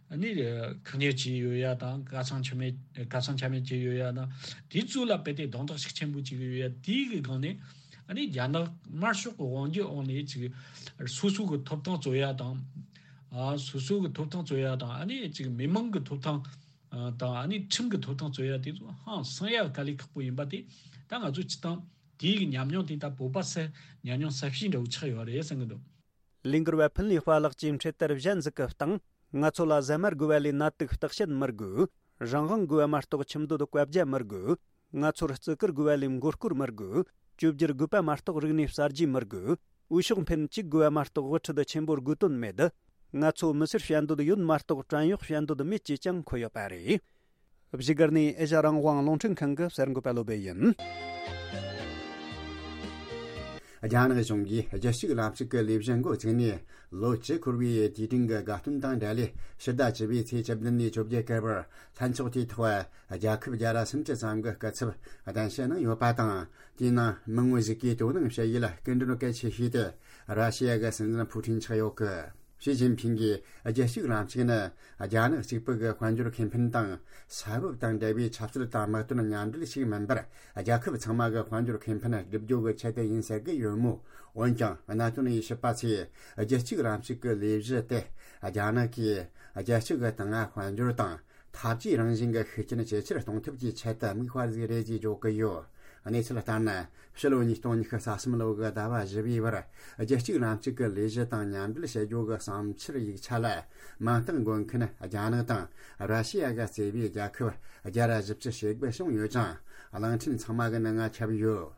ཨ་ནི་བཀག་ཉར་བྱས་ཡོད་ཡ་དང་། གར་སོང་ཆ་མེད་གར་སོང་ཆ་མེད་བྱས་ཡོད་ཡ་དང་། དེ་ཚོ་ལ་རྦད་དེ་རྡུང་རྡེག་ཤུགས་ཆེན་པོ་བྱེད་ཀྱི་ཡོད་ཡ་དེའི་གི་སྒང་ནས། ཨ་ནི་རྒྱ་ནག་དམར་ཤོག་གི་དབང་སྒྱུར་འོག་ནས་ཅིག་སོ་སོ་གི་ཐོབ་ཐང་རྩོད་ཡ་དང་། ཨ་སོ་སོ་གི་ཐོབ་ཐང་རྩོད་ཡ་དང་། ཨ་ནི་ཅིག་མི་མང་གི་ཐོབ་ཐང་དང་། ཨ་ནི་ཁྲིམས་ཀྱི་ཐོབ་ཐང་རྩོད་ཡ་དེ་ཚོ་ཧང་སང་ཡ་དཀའ་ལས་ཁག་པོ་ཡིན་པ་དེ། ད་ང་ཚོ་སྤྱི་བཏང་དེའི་གི་ཉམས་མྱོང་དེ་ད་བོད་པ་སེ་ཉམས་མྱོང་གསར་བཤད་འདྲ་བོ་ཆགས་ཡོད་རེད་བསམ་གི་འདུག་ལས་འགུལ་བ་ཕིན་ལི་ཧྭ་ལགས་ཀྱིས་འཕྲེད་དར་གཞན་ཟིག་གི་སྟེང་། ང་ཚོ་ལ་ཟ་མ་དགོས་པ་ལས་ནད་དུག་བརྟག་དཔྱད་མི་དགོས། རང་དབང་དགོས་པ་མ་གཏོགས་ཁྱིམ་སྡོད་བཀའ་རྒྱ་མི་དགོས། ང་ཚོར་བརྩི་བཀུར་དགོས་པ་ལས་མགོ་སྐོར་མི་དགོས། བཅོས་བསྒྱུར་དགོས་པ་མ་གཏོགས་རིག་གནས་གསར་བརྗེ་མི་དགོས། འོས་ཤོག་འཕེན་གཅིག་དགོས་པ་མ་གཏོགས་དབུ་ཁྲིད་ཆེན་པོར་དགོས་དོན་མེད། ང་ཚོ་མི་སེར་བཤད་འདོད་ཡོད་མ་གཏོགས་བྲན་གཡོག་བཤད་འདོད་མེད་ཅེས་ཀྱང་འཁོད་ཡོད་པ་རེད། བཞུགས་སྒར་ནས་ཨེ་ཤ་རང་དབང་རླུང་འཕྲིན་ཁང་གི་གསར་འགོད་པ་བློ་བྷེ་ཡིན། རྒྱ་ནག་གཞུང་གིས་རྒྱལ་གཅེས་ལམ་ཕྱོགས་ཀྱི་ལས་གཞི་འགོ་བཙུགས་ནས་ལོ་བཅུ་འཁོར་བའི་དུས་དྲན་གྱི་དགའ་སྟོན་དང་འབྲེལ། ཕྱི་ཟླ་བཅུ་པའི་ཚེས་བཅུ་བདུན་ནས་བཅོ་བརྒྱད་བར་ལྷན་ཚོགས་དེའི་ཐོག་རྒྱལ་ཁབ་བརྒྱ་དང་སུམ་ཅུ་ཙམ་གྱི་སྐུ་ཚབ་གདན་ཞུ་གནང་ཡོད་པ་དང་། དེའི་ནང་མི་ངོ་ཞིག་གིས་དོ་སྣང་བྱེད་ཡུལ་སྐུ་མགྲོན་གལ་ཆེ་ཤོས་དེ་ར་ཤི་ཡ་གི་སྲིད་འཛིན་ཕུའུ་ཁྲིན་ཆགས་ཡོད་གི། ཞི་ཅིན་ཕིང་གིས་རྒྱལ་གཅེས་ལམ་ཕྱོགས་ནི་རྒྱ་ནག་གཅིག་པུ་གི་དཔལ་འབྱོར་ཁེ་ཕན་དང་ས་བབ་དང་འབྲེལ་བའི་ཆབ་སྲིད་དང་དམག་དོན་མཉམ་འབྲེལ་ཞིག་མིན་པར། རྒྱལ་ཁབ་ཚང་མ་གི་དཔལ་འབྱོར་ཁེ་ཕན་སྒྲུབ་རྒྱུ་གི་ཆེད་དུ་ཡིན་ཟེར་གི་ཡོད་མོད། འོན་ཀྱང་གནད་དོན་དབྱེ་ཞིབ་པ་ཚོས་རྒྱལ་གཅེས་ལམ་ཕྱོགས་ཀྱི་ལས་གཞི་དེ་རྒྱ་ནག་གིས་རྒྱལ་སྤྱི་གི་དང་དཔལ་འབྱོར་དང་འཐབ་ཇུས་རང་བཞིན་གྱི་ཤུགས་རྐྱེན་ཇེ་ཆེར་གཏོང་ཐབས་ཀྱི་ཆེད་དུ་དམིགས་པ་ཟིག་རེད་ཅེས་བརྗོད་ཀྱི་ཡོད། གནས་ཚུལ་ལྟར་ན། ཕྱི་ལོ་ཉིས་སྟོང་ཉི་ཤུ་རྩ་གསུམ་ལོ་གི་ཟླ་བ་བཞི་པའི་བར། རྒྱལ་གཅེས་ལམ་ཕྱོགས་ཀྱི་ལས་གཞི་དང་མཉམ་འབྲེལ་བྱེད་རྒྱུ་གི་བསམ་འཆར་ཡིག་ཆ་ལ། མིང་རྟགས་འགོད་མཁན་རྒྱ་ནག་དང་ར་ཤི་ཡ་གི་གཙོས་པའི་རྒྱལ་ཁབ་བརྒྱ་དང་བཞི་བཅུ་ཞེ་དགུ་བྱུང་ཡོད་ཅིང་། གླིང་ཕྲན་ཚང་མ་གི་ནང་ང་ཁྱབ་ཡོད།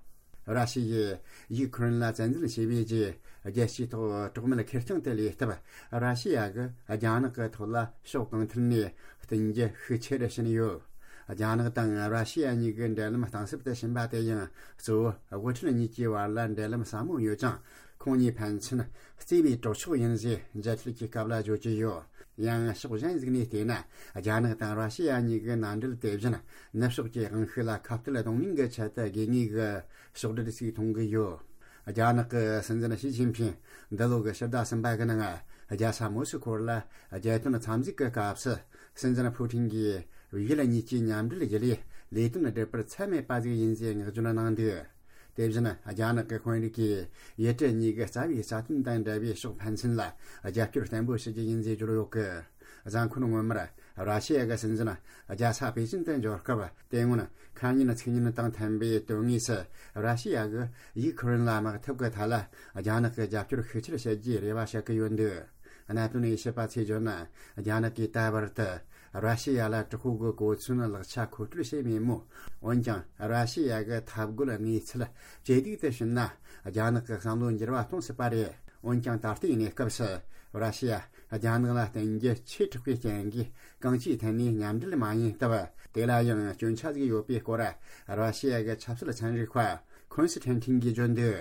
ར་ཤི་ཡས་ཡུ་ཁུ་རེན་ལ་བཙན་འཛུལ་བྱས་པའི་རྗེས། རྒྱལ་སྤྱིའི་ཐོག་གྲོགས་མེད་ཁེར་རྐྱང་དུ་ལུས་སྟབས། ར་ཤི་ཡ་གིས་རྒྱ་ནག་གི་ཐོག་ལ་ཕྱོགས་གང་ཐད་ནས་བསྟུན་རྒྱུ་ཤུགས་ཆེ་རུ་ཕྱིན་ཡོད། རྒྱ་ནག་དང་ར་ཤི་ཡ་གཉིས་ཀྱི་འབྲེལ་ལམ་གཏིང་ཟབ་ཏུ་ཕྱིན་པ་དེ་ཡང་གཙོ་བོ་དབུ་ཁྲིད་གཉིས་ཀྱི་བར་ལ་འབྲེལ་ལམ་ཟབ་མོ་ཡོད་ཅིང་། ཁོང་གཉིས་ཕན་ཚུན་བརྩེ་བའི་གྲོགས་མཆོག་ཡིན་ཞེས་མཇལ་འཕྲད་ཀྱི་སྐབས་ལ་བརྗོད་ཀྱི་ཡོད། ཡང་ཕྱོགས་གཞན་ཞིག་ནས་བལྟས་ན། རྒྱ་ནག་དང་ར་ཤི་ཡ་གཉིས་ཀྱི་མནའ་འབྲེལ་དེ་བཞིན་ནུབ་ཕྱོགས་ཀྱི་དབང་ཤུགས་ལ་ཁ་གཏད་གཏོང་མིན་གྱི་ཆེད་དུ་དགོས་ངེས་ཀྱི་ཕྱོགས་སྒྲིག་ཞིག་མཐོང་གི་ཡོད། རྒྱ་ནག་གི་སྲིད་འཛིན་ཞི་ཅིན་ཕིང་འདི་ལོ་གི་ཕྱི་ཟླ་གསུམ་པ་གི་ནང་རྒྱལ་ས་མོ་སི་ཁོ་ལ་རྒྱལ་དོན་འཚམས་གཟིགས་ཀྱི་སྐབས་སུ། སྲིད་འཛིན་ཕུའུ་ཁྲིན་གྱིས་ཡུལ་གཉིས་ཀྱི་མཉམ་འབྲེལ་བརྒྱུད་ལས་ལས་དོན་སྒྲུབ་པར་ཚད་མེད་པ་ཟིག་ཡིན་ཞེས་བསྔགས་བརྗོད་གནང་འདུག་དེ་བཞིན་རྒྱ་ནག་གི་དཔོན་རིགས་ཀྱིས་ཡུལ་གྲུ་གཉིས་ཀྱི་རྩ་བའི་རྩ་དོན་དང་འབྲེལ་བའི་ཕྱོགས་ཕན་ཚུན་ལ་རྒྱབ་སྐྱོར་བརྟན་པོ་བྱེད་རྒྱུ་ཡིན་ཞེས་བརྗོད་ཡོད་གི། གཟའ་འཁོར་སྔོན་མར་ར་ཤི་ཡ་གི་སྲིད་འཛིན་རྒྱལ་ས་པེ་ཅིན་དུ་འབྱོར་སྐབས། དེ་སྔོན་ཁ་ཉིན་ཚིག་ཉིན་དང་མཐུན་པའི་དོན་དངོས་སུ་ར་ཤི་ཡ་གིས་ཡུ་ཁུ་རེན་ལ་དམག་འཐབ་ཀྱི་ཐད་ལ་རྒྱ་ནག་གི་རྒྱབ་སྐྱོར་ཤུགས་ཆེར་བྱེད་རྒྱུའི་རེ་བ་བྱེད་ཀྱི་ཡོད་འདུག་གནད་དོན་དབྱེ་ཞིབ་པ་ཚོས་བརྗོད་ན། རྒྱ་ནག་གིས་ད་བར་དུ་ར་ཤི་ཡ་ལ་དྲག་པོའི་གོ་མཚོན་ལག་ཆ་མཁོ་སྤྲོད་བྱས་མེད་མོད། འོན་ཀྱང་ར་ཤི་ཡ་གི་འཐབ་རྒོལ་གནས་ཚུལ་ཇེ་སྡུག་ཏུ་ཕྱིན་ན། རྒྱ་ནག་གི་བསམ་བློ་འགྱུར་བ་གཏོང་སྲིད་པ་རེད། འོན་ཀྱང་ད་ལྟའི་གནས་སྐབས་སུ་ར་ཤི་ཡ་རྒྱ་ནག་ལ་བརྟེན་རྒྱུ་ཆེས་དྲག་པའི་རྐྱེན་གྱིས་གང་ཅིའི་ཐད་ནས་མཉམ་འབྲེལ་མ་ཡིན་སྟབས། དེ་ལ་ཡང་སྐྱོན་ཆ་ཟིག་ཡོད་པའི་སྐོར་ར་ཤི་ཡ་གི་ཆབ་སྲིད་ཚན་རིག་པ་ཁོན་སི་ཐན་ཐིན་གྱིས་བརྗོད་འདུག་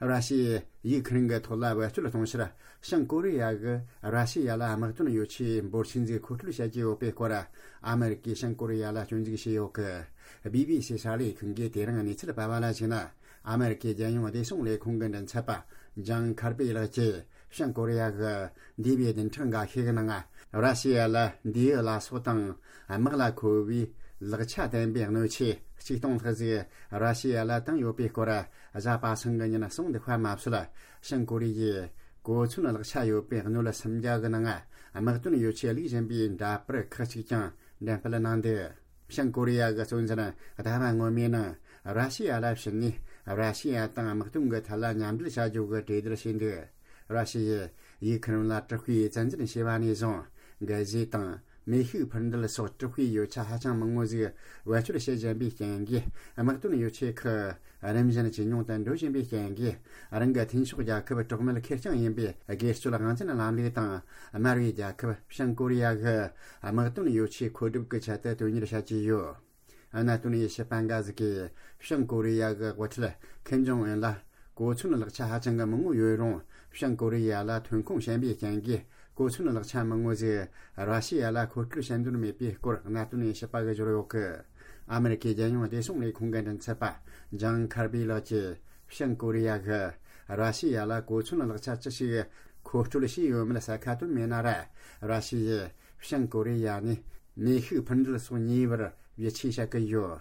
ར་ཤི་ཡས་ཡུག་ཁི་རན་གྱི་ཐོག་ལ་བེད་སྤྱོད་གཏོང་ཕྱིར། བྱང་ཀོ་རི་ཡ་གིས་ར་ཤི་ཡ་ལ་དམག་དོན་ཡོ་ཆས་འབོར་ཆེན་ཟིག་མཁོ་སྤྲོད་བྱ་རྒྱུ་ཡོད་པའི་སྐོར། ཨ་མེ་རི་ཀས་བྱང་ཀོ་རི་ཡ་ལ་སྐྱོན་འཛུགས་བྱས་ཡོད་གི། བི་བི་སི་གསར་ལས་ཁང་གིས་དེ་རིང་གནས་ཚུལ་སྤེལ་བ་ལ་གཞིགས་ན། ཨ་མེ་རི་ཀའི་རྒྱལ་ཡོངས་བདེ་སྲུང་ལས་ཁུངས་ཀྱི་མགྲིན་ཚབ་པ་ཇང་ཁར་པི་ལགས་ཀྱིས། བྱང་ཀོ་རི་ཡ་གིས་འདས་པའི་བདུན་ཕྲག་འགའ་ཤས་ཀྱི་ནང་། ར་ཤི་ཡ་ལ་མདེའུ་ལ་སོགས་དང་། དམག་ལ་མཁོ་བའི་ལག་ཆ་ལྡན་པའི་སྣོད་ཆས་ཆིག་སྟོང་ལྷག་ཟིག་ར་ཤི་ཡ་ལ་བཏང་ཡོད་པའི་སྐོར། གཟའ་པ་སངས་ཀྱི་ཉིན་གསུངས་འདུག་པ་མ་ཟད། བྱང་ཀོ་རི་ཡས་གོ་མཚོན་ལག་ཆ་ཡོད་པའི་སྣོད་སུམ་བརྒྱ་གི་ནང་དམག་དོན་ཡོ་ཆས་བླུགས་བཞིན་པའི་འདྲ་པར་ཁག་ཅིག་ཀྱང་འགྲེམས་སྤེལ་གནང་འདུག་བྱང་ཀོ་རི་ཡ་གི་གཙོ་འཛིན་ཟླ་བ་སྔོན་མའི་ནང་ར་ཤི་ཡ་ལ་ཕྱིན་ནས། ར་ཤི་ཡ་དང་དམག་དོན་གྱི་ཐད་ལ་མཉམ་འབྲེལ་བྱ་རྒྱུ་གི་གྲོས་བསྡུར་བྱས་འདུག་ར་ཤི་ཡས་ཡུག་ཁི་རན་ལ་དྲག་པོའི་བཙན་འཛུལ་བྱས་པ་ནས་བཟུང་། འགན་བཞེས་དང་མེ་ཤུགས་འཕུར་མདེལ་སོགས་དྲག་པོའི་ཡོ་ཆས་ཧ་ཅང་མང་བོ་ཟིག་བེད་སྤྱོད་བྱེད་བཞིན་པའི་རྐྱེན་གྱིས། དམག་དོན་ཡོ་ཆས་ཁག་རིམ་བཞིན་ཇེ་ཉུང་དུ་འགྲོ་བཞིན་པའི་རྐྱེན་གྱིས། རང་གི་མཐུན་ཕྱོགས་རྒྱལ་ཁབ་གྲོགས་མོལ་ཁེར་རྐྱང་ཡིན་པའི་སྒེར་གཅོད་དབང་འཛིན་ལམ་ལུགས་དང་། དམར་བའི་རྒྱལ་ཁབ་བྱང་ཀོ་རི་ཡ་གི་དམག་དོན་ཡོ་ཆས་མཁོ་སྒྲུབ་ཀྱི་ཆེད་དུ་དོན་གཉེར་བྱ་རྒྱུ་ཡོད། གནད་དོན་དབྱེ་ཞིབ་པ་འགའ་ཟིག་གིས། བྱང་ཀོ་རི་ཡ་གི་དབུ་ཁྲིད་ཁིམ་ཇོང་ཨུན་ལ་གོ་མཚོན་ལག་ཆ་ཧ་ཅང་གི་མང་བོ་ཡོད་རུང་། བྱང་ཀོ་རི་ཡ་ལ་ཐོན་ཁུངས་ཞན་པའི་རྐྱེན་གྱིས། གོ་མཚོན་ལག་ཆ་མང་བོ་ཟིག་ར་ཤི་ཡ་ལ་མཁོ་སྤྲོད་བྱེད་འདོད་མེད་པའི་སྐོར། གནད་དོན་དབྱེ་ཞིབ་པ་གིས་བརྗོད་ཡོད་གི། ཨ་མེ་རི་ཀའི་རྒྱལ་ཡོངས་བདེ་སྲུང་ལས་ཁུངས་ཀྱི་མགྲིན་ཚབ་པ་ཇང་ཁར་པི་ལགས་ཀྱིས། བྱང་ཀོ་རི་ཡ་གིས་ར་ཤི་ཡ་ལ་གོ་མཚོན་ལག་ཆ་ཅི་ཞིག་མཁོ་སྤྲོད་བྱས་ཡོད་མེད་གསལ་ཁ་བཏོན་མེད་ན་ར། ར་ཤི་ཡས་བྱང་ཀོ་རི་ཡ་ནས་མེ་ཤུགས་འཕུར་མདེལ་སོགས་ཉོས་པར་ཡིད་ཆེས་བྱ་གི་ཡོད།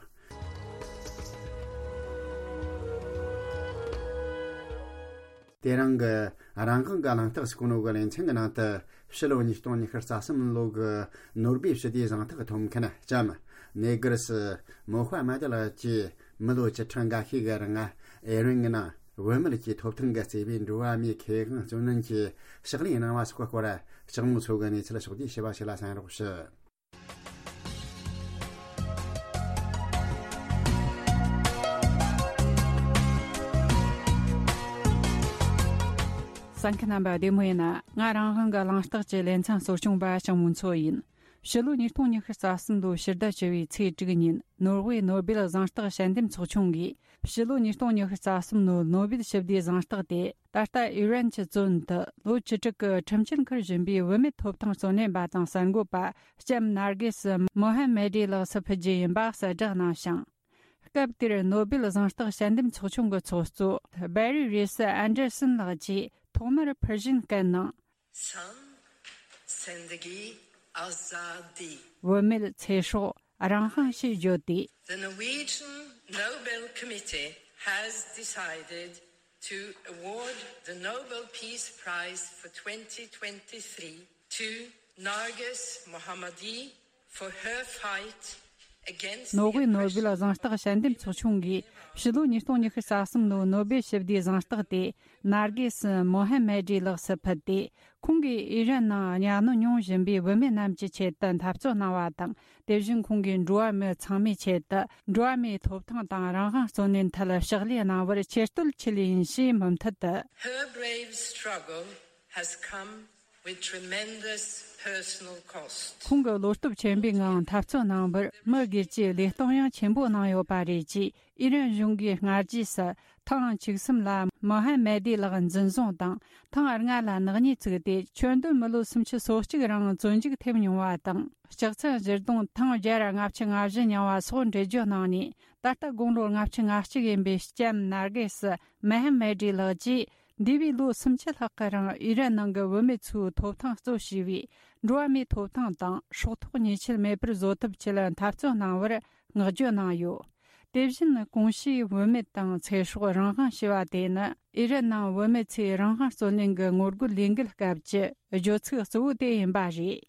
དེ་རིང་གི་རང་དབང་གི་གླེང་སྟེགས་སུ་གོ་ནོ་གི་ལེ་ཚན་གྱི་ནང་དུ། ཕྱི་ལོ་ཉིས་སྟོང་ཉི་ཤུ་རྩ་གསུམ་ལོ་གི་ནོ་སྦེལ་ཞི་བདེའི་གཟེངས་རྟགས་ཐོབ་མཁན་ལྕམ་ནེ་གར་སི་མོ་ཧ་མ་ཏི་ལགས་ཀྱིས་མི་ལོ་བཅུ་ཕྲག་འགའ་ཤས་ཀྱི་རིང་ཨེ་རན་གྱི་ནང་བུད་མེད་ཀྱི་ཐོབ་ཐང་གི་བརྩེ་བའི་འགྲོ་བ་མིའི་ཁེ་དབང་བརྩོན་ལེན་གྱི་ཕྱག་ལས་གནང་བ་སོགས་ཀྱི་སྐོར། ལྕགས་མོ་མཚོ་གིས་གནས་ཚུལ་ཕྱོགས་བསྡུས་ཞུས་པ་ཞིག་ལ་གསན་རོགས་ཞུ། གསན་མཁན་རྣམ་པ་བདེ་མོ་ཡིན་ན། ང་རང་དབང་གི་གླེང་སྟེགས་ཀྱི་ལེ་ཚན་གཙོ་སྐྱོང་པ་ལྕགས་མོ་མཚོ་ཡིན། ཕྱི་ལོ་ཉིས་སྟོང་ཉི་ཤུ་རྩ་གསུམ་ལོའི་ཕྱི་ཟླ་བཅུ་བའི་ཚེས་དྲུག་ཉིན། ནོར་ཝེ་ནོ་སྦེལ་གཟེངས་རྟགས་དཔྱད་འདེམས་ཚོགས་ཆུང་གིས། ཕྱི་ལོ་ཉིས་སྟོང་ཉི་ཤུ་རྩ་གསུམ་ལོའི་ནོ་སྦེལ་ཞི་བདེའི་གཟེངས་རྟགས་དེ། ད་ལྟ་ཨི་རན་གྱི་བཙོན་དུ་ལོ་བཅུ་དྲུག་གི་ཁྲིམས་ཆད་འཁུར་བཞིན་པའི་བུད་མེད་ཐོབ་ཐང་བརྩོན་ལེན་པ་དང་གསར་འགོད་པ་ལྕམ་ནར་གེ་སི་མོ་ཧ་མེ་ཏི་ལགས་སུ་ཕུལ་རྒྱུ་ཡིན་པ་གསལ་བསྒྲགས་གནང་ཞིང་། སྐབས་དེར་ནོ་སྦེལ་གཟེངས་རྟགས་དཔྱད་འདེམས་ཚོགས་ཆུང་གི་ཚོགས་གཙོ་སྦེ་རི་རེས་ཨན་ཌར་སན་ལགས་ཀྱིས་ཐོག་མར་ཕུར་ཤིང་བཀལ་ནས། Zan, Zendegi, Azadi. བུད་མེད་ཚེ་སྲོག་རང་དབང་ཞེས་བརྗོད་དེ། The Norwegian Nobel Committee has decided to award the Nobel Peace Prize for twenty twenty-three to Narges Mohammadi for her fight against the ནོ་སྦེལ་oppression ནོ་སྦེལ་གཟེངས་རྟགས་དཔྱད་འདེམས་ཚོགས་ཆུང་གིས་ཕྱི་ལོ་ཉིས་སྟོང་ཉི་ཤུ་རྩ་གསུམ་ལོའི་ནོ་སྦེལ་ཞི་བདེའི་གཟེངས་རྟགས་དེ་ནར་གེ་སི་མོ་ཧ་མེ་ཏི་ལགས་སུ་ཕུལ་ཏེ། ཁོང་གིས་ཨི་རན་ནང་གཉའ་གནོན་མྱོང་བཞིན་པའི་བུད་མེད་རྣམས་ཀྱི་ཆེད་དུ་འཐབ་རྩོད་གནང་བ་དང་། དེ་བཞིན་ཁོང་གིས་འགྲོ་བ་མི་ཚང་མའི་ཆེད་དུ་འགྲོ་བ་མིའི་ཐོབ་ཐང་དང་རང་དབང་བརྩོན་ལེན་ཐད་ཕྱག་ལས་གནང་བར་ཆེ་བསྟོད་ཆེ་ལེགས་ཡིན་ཞེས་མུ་མཐུད་དུ། Her brave struggle has come with tremendous personal cost. ཁོང་གིས་བློ་སྟོབས་ཆེན་པོའི་ངང་འཐབ་རྩོད་གནང་བར་མི་སྒེར་གྱི་ལས་གཏོང་ཡང་ཆེན་པོ་གནང་ཡོད་པ་རེད་ཅེས། ཨི་རན་གཞུང་གིས་སྔ་རྗེས་སུ་ཐེངས་བཅུ་གསུམ་ལ་མོ་ཧ་མེ་ཏི་ལགས་འཛིན་བཟུང་དང་། ཐེངས་ལྔ་ལ་ནག་ཉེས་བཙུགས་ཏེ། ཁྱོན་བསྡོམས་མི་ལོ་སུམ་ཅུ་སོ་གཅིག་རིང་བཙོན་འཇུག་ཐེབས་མྱོང་བ་དང་། ལྕགས་ཚན་བཞི་སྡོང་ཐེངས་བརྒྱ་ལྔ་བཅུ་ང་བཞི་མྱངས་པ་སོགས་འགྲེལ་བརྗོད་གནང་ནས། ད་ལྟ་དགུང་ལོ་ལྔ་བཅུ་ང་གཅིག་ཡིན་པའི་ལྕམ་ནར་གེ་སི་མེ་ཧ་མེ་ཏི་ལགས་ཀྱིས། འདས་པའི་ལོ་སུམ་ཅུ་ལྷག་གི་རིང་ཨི་རན་ནང་གི་བུད་མེད་ཚོའི་ཐོབ་ཐང་གཙོ་བྱས་པའི་འགྲོ་བ་མིའི་ཐོབ་ཐང་དང་སྲོག་ཐོག་ཉེས་ཆད་མེད་པར་བཟོ་ཐབས་ཆེད་འཐབ་རྩོད་གནང་བར་བསྔགས་བརྗོད་གནང་ཡོད། དེ་བཞིན་གོང་ཞུས་བུད་མེད་དང་ཚེ་སྲོག་རང་དབང་ཞེས་པ་དེ་ནི་ཨི་རན་ནང་བུད་མེད་ཚོའི་རང་དབང་རྩོད་ལེན་གྱི་ངོ་རྒོལ་ལས་འགུལ་སྐབས་ཀྱི་བརྗོད་ཚིག་གཙོ་བོ་དེ་ཡིན་པ་རེད།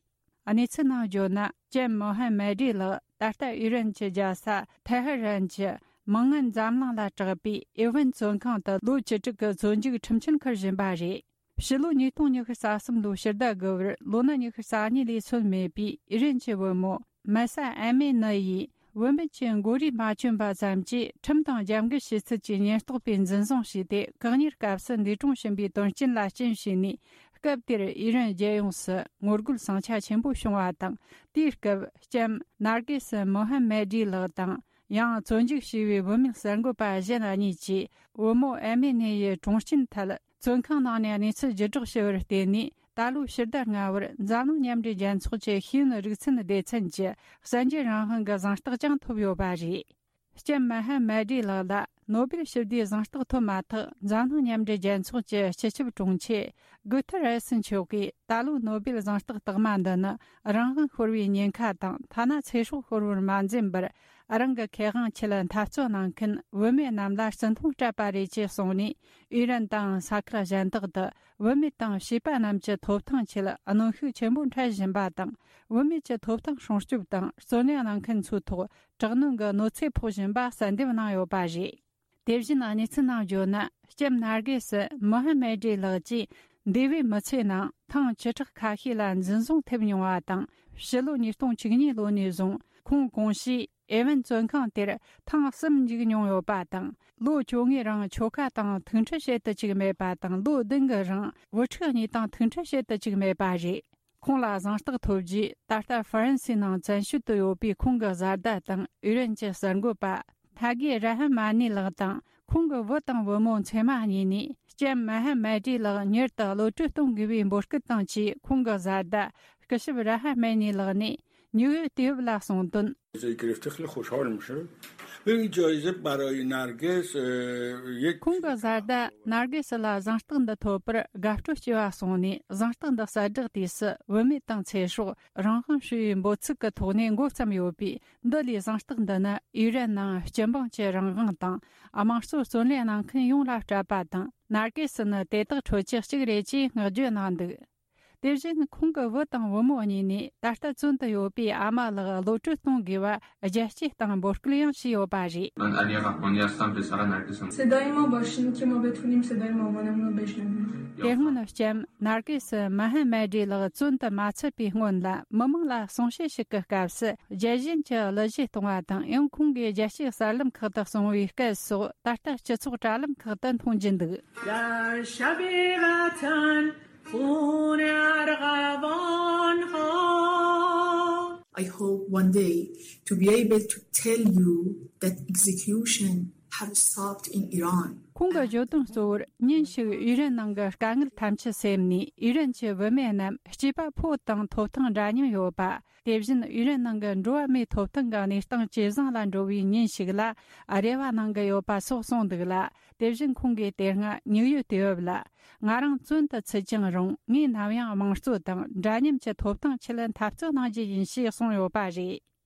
གནས་ཚུལ་ནང་བརྗོད་ན། ལྕམ་མོ་ཧ་མེ་ཏི་ལགས་ད་ལྟ་ཨི་རན་གྱི་རྒྱལ་ས་ཐེ་ཧ་རན་གྱི་མི་ངན་འཛམ་གླིང་ལ་གྲགས་པའི་ཨེ་ཝན་བཙོན་ཁང་དུ་ལོ་བཅུ་དྲུག་གི་བཙོན་འཇུག་ཁྲིམས་ཆད་འཁུར་བཞིན་པ་རེད། ཕྱི་ལོ་ཉིས་སྟོང་ཉི་ཤུ་རྩ་གསུམ་ལོའི་ཕྱི་ཟླ་དགུ་པར་ལོ་ན་ཉི་ཤུ་རྩ་གཉིས་ལས་སོན་མེད་པའི་ཨི་རན་གྱི་བུ་མོ་མ་ས་ཨ་མེ་ནི་ཡིས་བུད་མེད་ཀྱི་མགོ་རུས་མ་གྱོན་པ་ཙམ་གྱིས་ཁྲིམས་དང་རྒྱབ་འགལ་བྱེད་ཚུལ་གྱི་ཉེན་རྟོག་པས་འཛིན་བཟུང་བྱས་ཏེ། བཀག་ཉར་སྐབས་སུ་འདས་གྲོངས་ཕྱིན་པའི་དོན་རྐྱེན་ལ་རྐྱེན་བྱས་ནས། སྐབས་དེར་ཨི་རན་རྒྱལ་ཡོངས་སུ་ངོ་རྒོལ་ཟིང་ཆ་ཆེན་པོ་བྱུང་བ་དང་། དེའི་སྐབས་ལྕམ་ནར་གེ་སི་མོ་ཧམ་མེ་ཌི་ལགས་དང་། ཡང་བཙོན་འཇུག་བྱས་པའི་བུད་མེད་གསར་འགོད་པ་གཞན་གཉིས་ཀྱིས་བུ་མོ་ཨ་མེ་ནི་ཡི་གྲོངས་རྐྱེན་ཐད། བཙོན་ཁང་ནང་ནས་གནས་ཚུལ་བརྒྱུད་བསྒྲགས་བྱས་པར་བརྟེན་ནས། ད་ལོའི་ཕྱི་ཟླ་ལྔ་པར་འཛམ་གླིང་མཉམ་འབྲེལ་རྒྱལ་ཚོགས་ཀྱི་ཤེས་ཡོན་རིག་ཚན་སྡེ་ཚན་གྱི་གསར་འགྱུར་རང་དབང་གི་གཟེངས་རྟགས་ཀྱང་ཐོབ་ཡོད་པ་རེད། ལྕམ་མ་ཧ་མ་ཌི་ལགས་ལ་ནོ་སྦེལ་ཞི་བདེའི་གཟེངས་རྟགས་ཐོབ་མ་ཐག་འཛམ་གླིང་མཉམ་འབྲེལ་རྒྱལ་ཚོགས་ཀྱི་སྤྱི་ཁྱབ་དྲུང་ཆེ་གུ་ཐེ་རེ་སི་མཆོག་གིས། ད་ལོའི་ནོ་སྦེལ་གཟེངས་རྟགས་རྟགས་མ་འདི་ནི་རང་དབང་ཤོར་བའི་ཉེན་ཁ་དང་། ཐ་ན་ཚེ་སྲོག་ཤོར་བར་མ་འཛེམས་པར་རང་གི་ཁེ་དབང་ཆེད་འཐབ་རྩོད་གནང་མཁན་བུད་མེད་རྣམས་ལ་བརྩི་མཐོང་སྤྲད་པ་རེད་ཅེས་གསུངས་ནས། ཨི་རན་དང་ས་ཁུལ་གཞན་དག་ཏུ་བུད་མེད་དང་བྱིས་པ་རྣམས་ཀྱི་ཐོབ་ཐང་ཆེད་གནོན་ཤུགས་ཆེན་པོ་འཕྲད་བཞིན་པ་དང་། བུད་མེད་ཀྱི་ཐོབ་ཐང་སྲུང་སྐྱོབ་དང་། བརྩོན་ལེན་གནང་མཁན་ཚོའི་ཐོག་དྲག་གནོན་གྱི་གནོད་འཚེ་ཕོག་བཞིན་པ་གསལ་འདེབས་གནང་ཡོད་པ་རེད། དེ་བཞིན་གནས་ཚུལ་ནང་བརྗོད་ན། ལྕམ་ནར་གེ་སི་མོ་ཧ་མེ་ཌི་ལགས་ཀྱིས་འདས་པའི་མི་ཚེ་ནང་ཐེངས་བཅུ་ཕྲག་ཁ་ཤས་ལ་འཛིན་བཟུང་ཐེབས་མྱོང་བ་དང་། ཕྱི་ལོ་ཉིས་སྟོང་བཅུ་གཉིས་ལོ་ནས་བཟུང་ཁོང་གོང་ཞུས་ཨེ་ཝན་བཙོན་ཁང་དེར་ཐེངས་གསུམ་འཇུག་མྱོང་ཡོད་པ་དང་། ལོ་བཅོ་ལྔའི་རིང་ཆོལ་ཁ་དང་ཐུག་འཕྲད་བྱེད་དུ་བཅུག་མེད་པ་དང་། ལོ་བདུན་གྱི་རིང་བུ་ཕྲུག་གཉིས་དང་ཐུག་འཕྲད་བྱེད་དུ་བཅུག་མེད་པ་རེད། ཁོང་ལ་གཟེངས་རྟགས་ཐོབ་རྗེས། ད་ལྟ་ཧྥ་རན་སིའི་ནང་བཙན་བྱོལ་དུ་ཡོད་པའི་ཁོང་གི་བཟའ་ཟླ་དང་། ཨི་རན་གྱི་གསར་འགོད་པ་ཐ་གི་ར་ཧ་མ་ནི་ལགས་དང་། ཁོང་གི་བུ་དང་བུ་མོ་མཚེ་མ་གཉིས་ནས། ལྕམ་མ་ཧ་མ་ཌི་ལགས་མྱུར་དུ་གློད་བཀྲོལ་གཏོང་དགོས་པའི་འབོད་སྐུལ་དང་བཅས། ཁོང་གི་བཟའ་ཟླ་སྐུ་ཞབས་ར་ཧ་མ་ནི་ལགས་ནས་ནིའུ་ཡོག་དུས་བབ་ལ་གསུངས་དོན། گرفته خیلی خوشحالم شد. این جایزه برای نرگس، اه، یک ཁོང་གི་བཟའ་ཟླ་ནར་གེ་སི་ལ་གཟེངས་རྟགས་འདི་ཐོབ་པར་དགའ་སྤྲོ་སྐྱེ་བ་གསུངས་ནས། གཟེངས་རྟགས་འདི་གསལ་བསྒྲགས་དུས་སུ། བུད་མེད་དང་ཚེ་སྲོག་རང་དབང་ཞེས་པའི་འབོད་ཚིག་གི་ཐོག་ནས་འགོ་བརྩམས་ཡོད་པས། འདི་ལས་གཟེངས་རྟགས་འདི་ནི་ཨི་རན་ནང་སྤྱི་འབངས་ཀྱི་རང་དབང་དང་། དམངས་གཙོ་བརྩོན་ལེན་གནང་མཁན་ཡོངས་ལ་སྤྲད་པ་དང་། ནར་གེ་སི་ནི་དེ་དག་ཁྲོད་ཀྱི་གཅིག་རེད་ཅེས་བསྔགས་བརྗོད་གནང་འདུག་དེ་བཞིན་ཁོང་གི་བུ་དང་བུ་མོ་གཉིས་ནས་ད་ལྟ་བཙོན་དུ་ཡོད་པའི་ཨ་མ་ལགས་གློད་བཀྲོལ་གཏོང་དགོས་པ་རྒྱལ་སྤྱིའི་སྟེང་འབོད་སྐུལ་ཡང་བྱས་ཡོད་པ་རེད། من علی قحبانی هستم، پسر نرگسم. صدای ما باشین که ما بتونیم صدای مامانمون رو بشنویم. དེ་སྔོན་ལྕམ་ནར་གེ་སི་མ་ཧ་མ་ཌི་ལགས་བཙོན་དུ་མ་ཚུད་པའི་སྔོན་ལ། མི་མང་ལ་གསུང་བཤད་ཞིག་གི་སྐབས་སུ། རྒྱལ་ཞེན་གྱི་གླུ་གཞས་གཏོང་བ་དང་། ཡང་ཁོང་གིས་རྒྱལ་སྤྱིའི་གསར་ལམ་ཁག་ཏུ་གསུང་བའི་སྐད་སོགས། ད་ལྟ་སྤྱི་ཚོགས་དྲ་ལམ་ཁག་ཏུ་མཐོང་རྒྱུ་འདུག. در شب وطن خون ارغوان ها. I hope one day to be able to tell you that execution have stopped in Iran. ཁོང་གི་བརྗོད་དོན་གཙོ་བོར། ཉིན་ཞིག་ཨི་རན་ནང་གི་དཀའ་ངལ་ཐམས་ཅད་སེལ་ནས། ཨི་རན་གྱི་བུད་མེད་རྣམས་སྐྱེས་པ་ཕོ་དང་ཐོབ་ཐང་འདྲ་མཉམ་ཡོད་པ། དེ་བཞིན་ཨི་རན་ནང་གི་འགྲོ་བ་མིའི་ཐོབ་ཐང་གི་གནས་སྟངས་ཇེ་བཟང་ལ་འགྲོ་བའི་ཉིན་ཞིག་ལ་རེ་བ་གནང་གི་ཡོད་པ་སོགས་གསུངས་འདུག་ལ། དེ་བཞིན་ཁོང་གིས་དེ་སྔ་ནིའུ་ཡོག་དུས་བབ་ལ། ང་རང་བཙོན་དུ་ཚུད་ཀྱང་རུང་། ངས་ནམ་ཡང་དམངས་གཙོ་དང་འདྲ་མཉམ་གྱི་ཐོབ་ཐང་ཆེད་འཐབ་རྩོད་གནང་རྒྱུ་ཡིན་ཞེས་གསུངས་ཡོད་པ་རེད།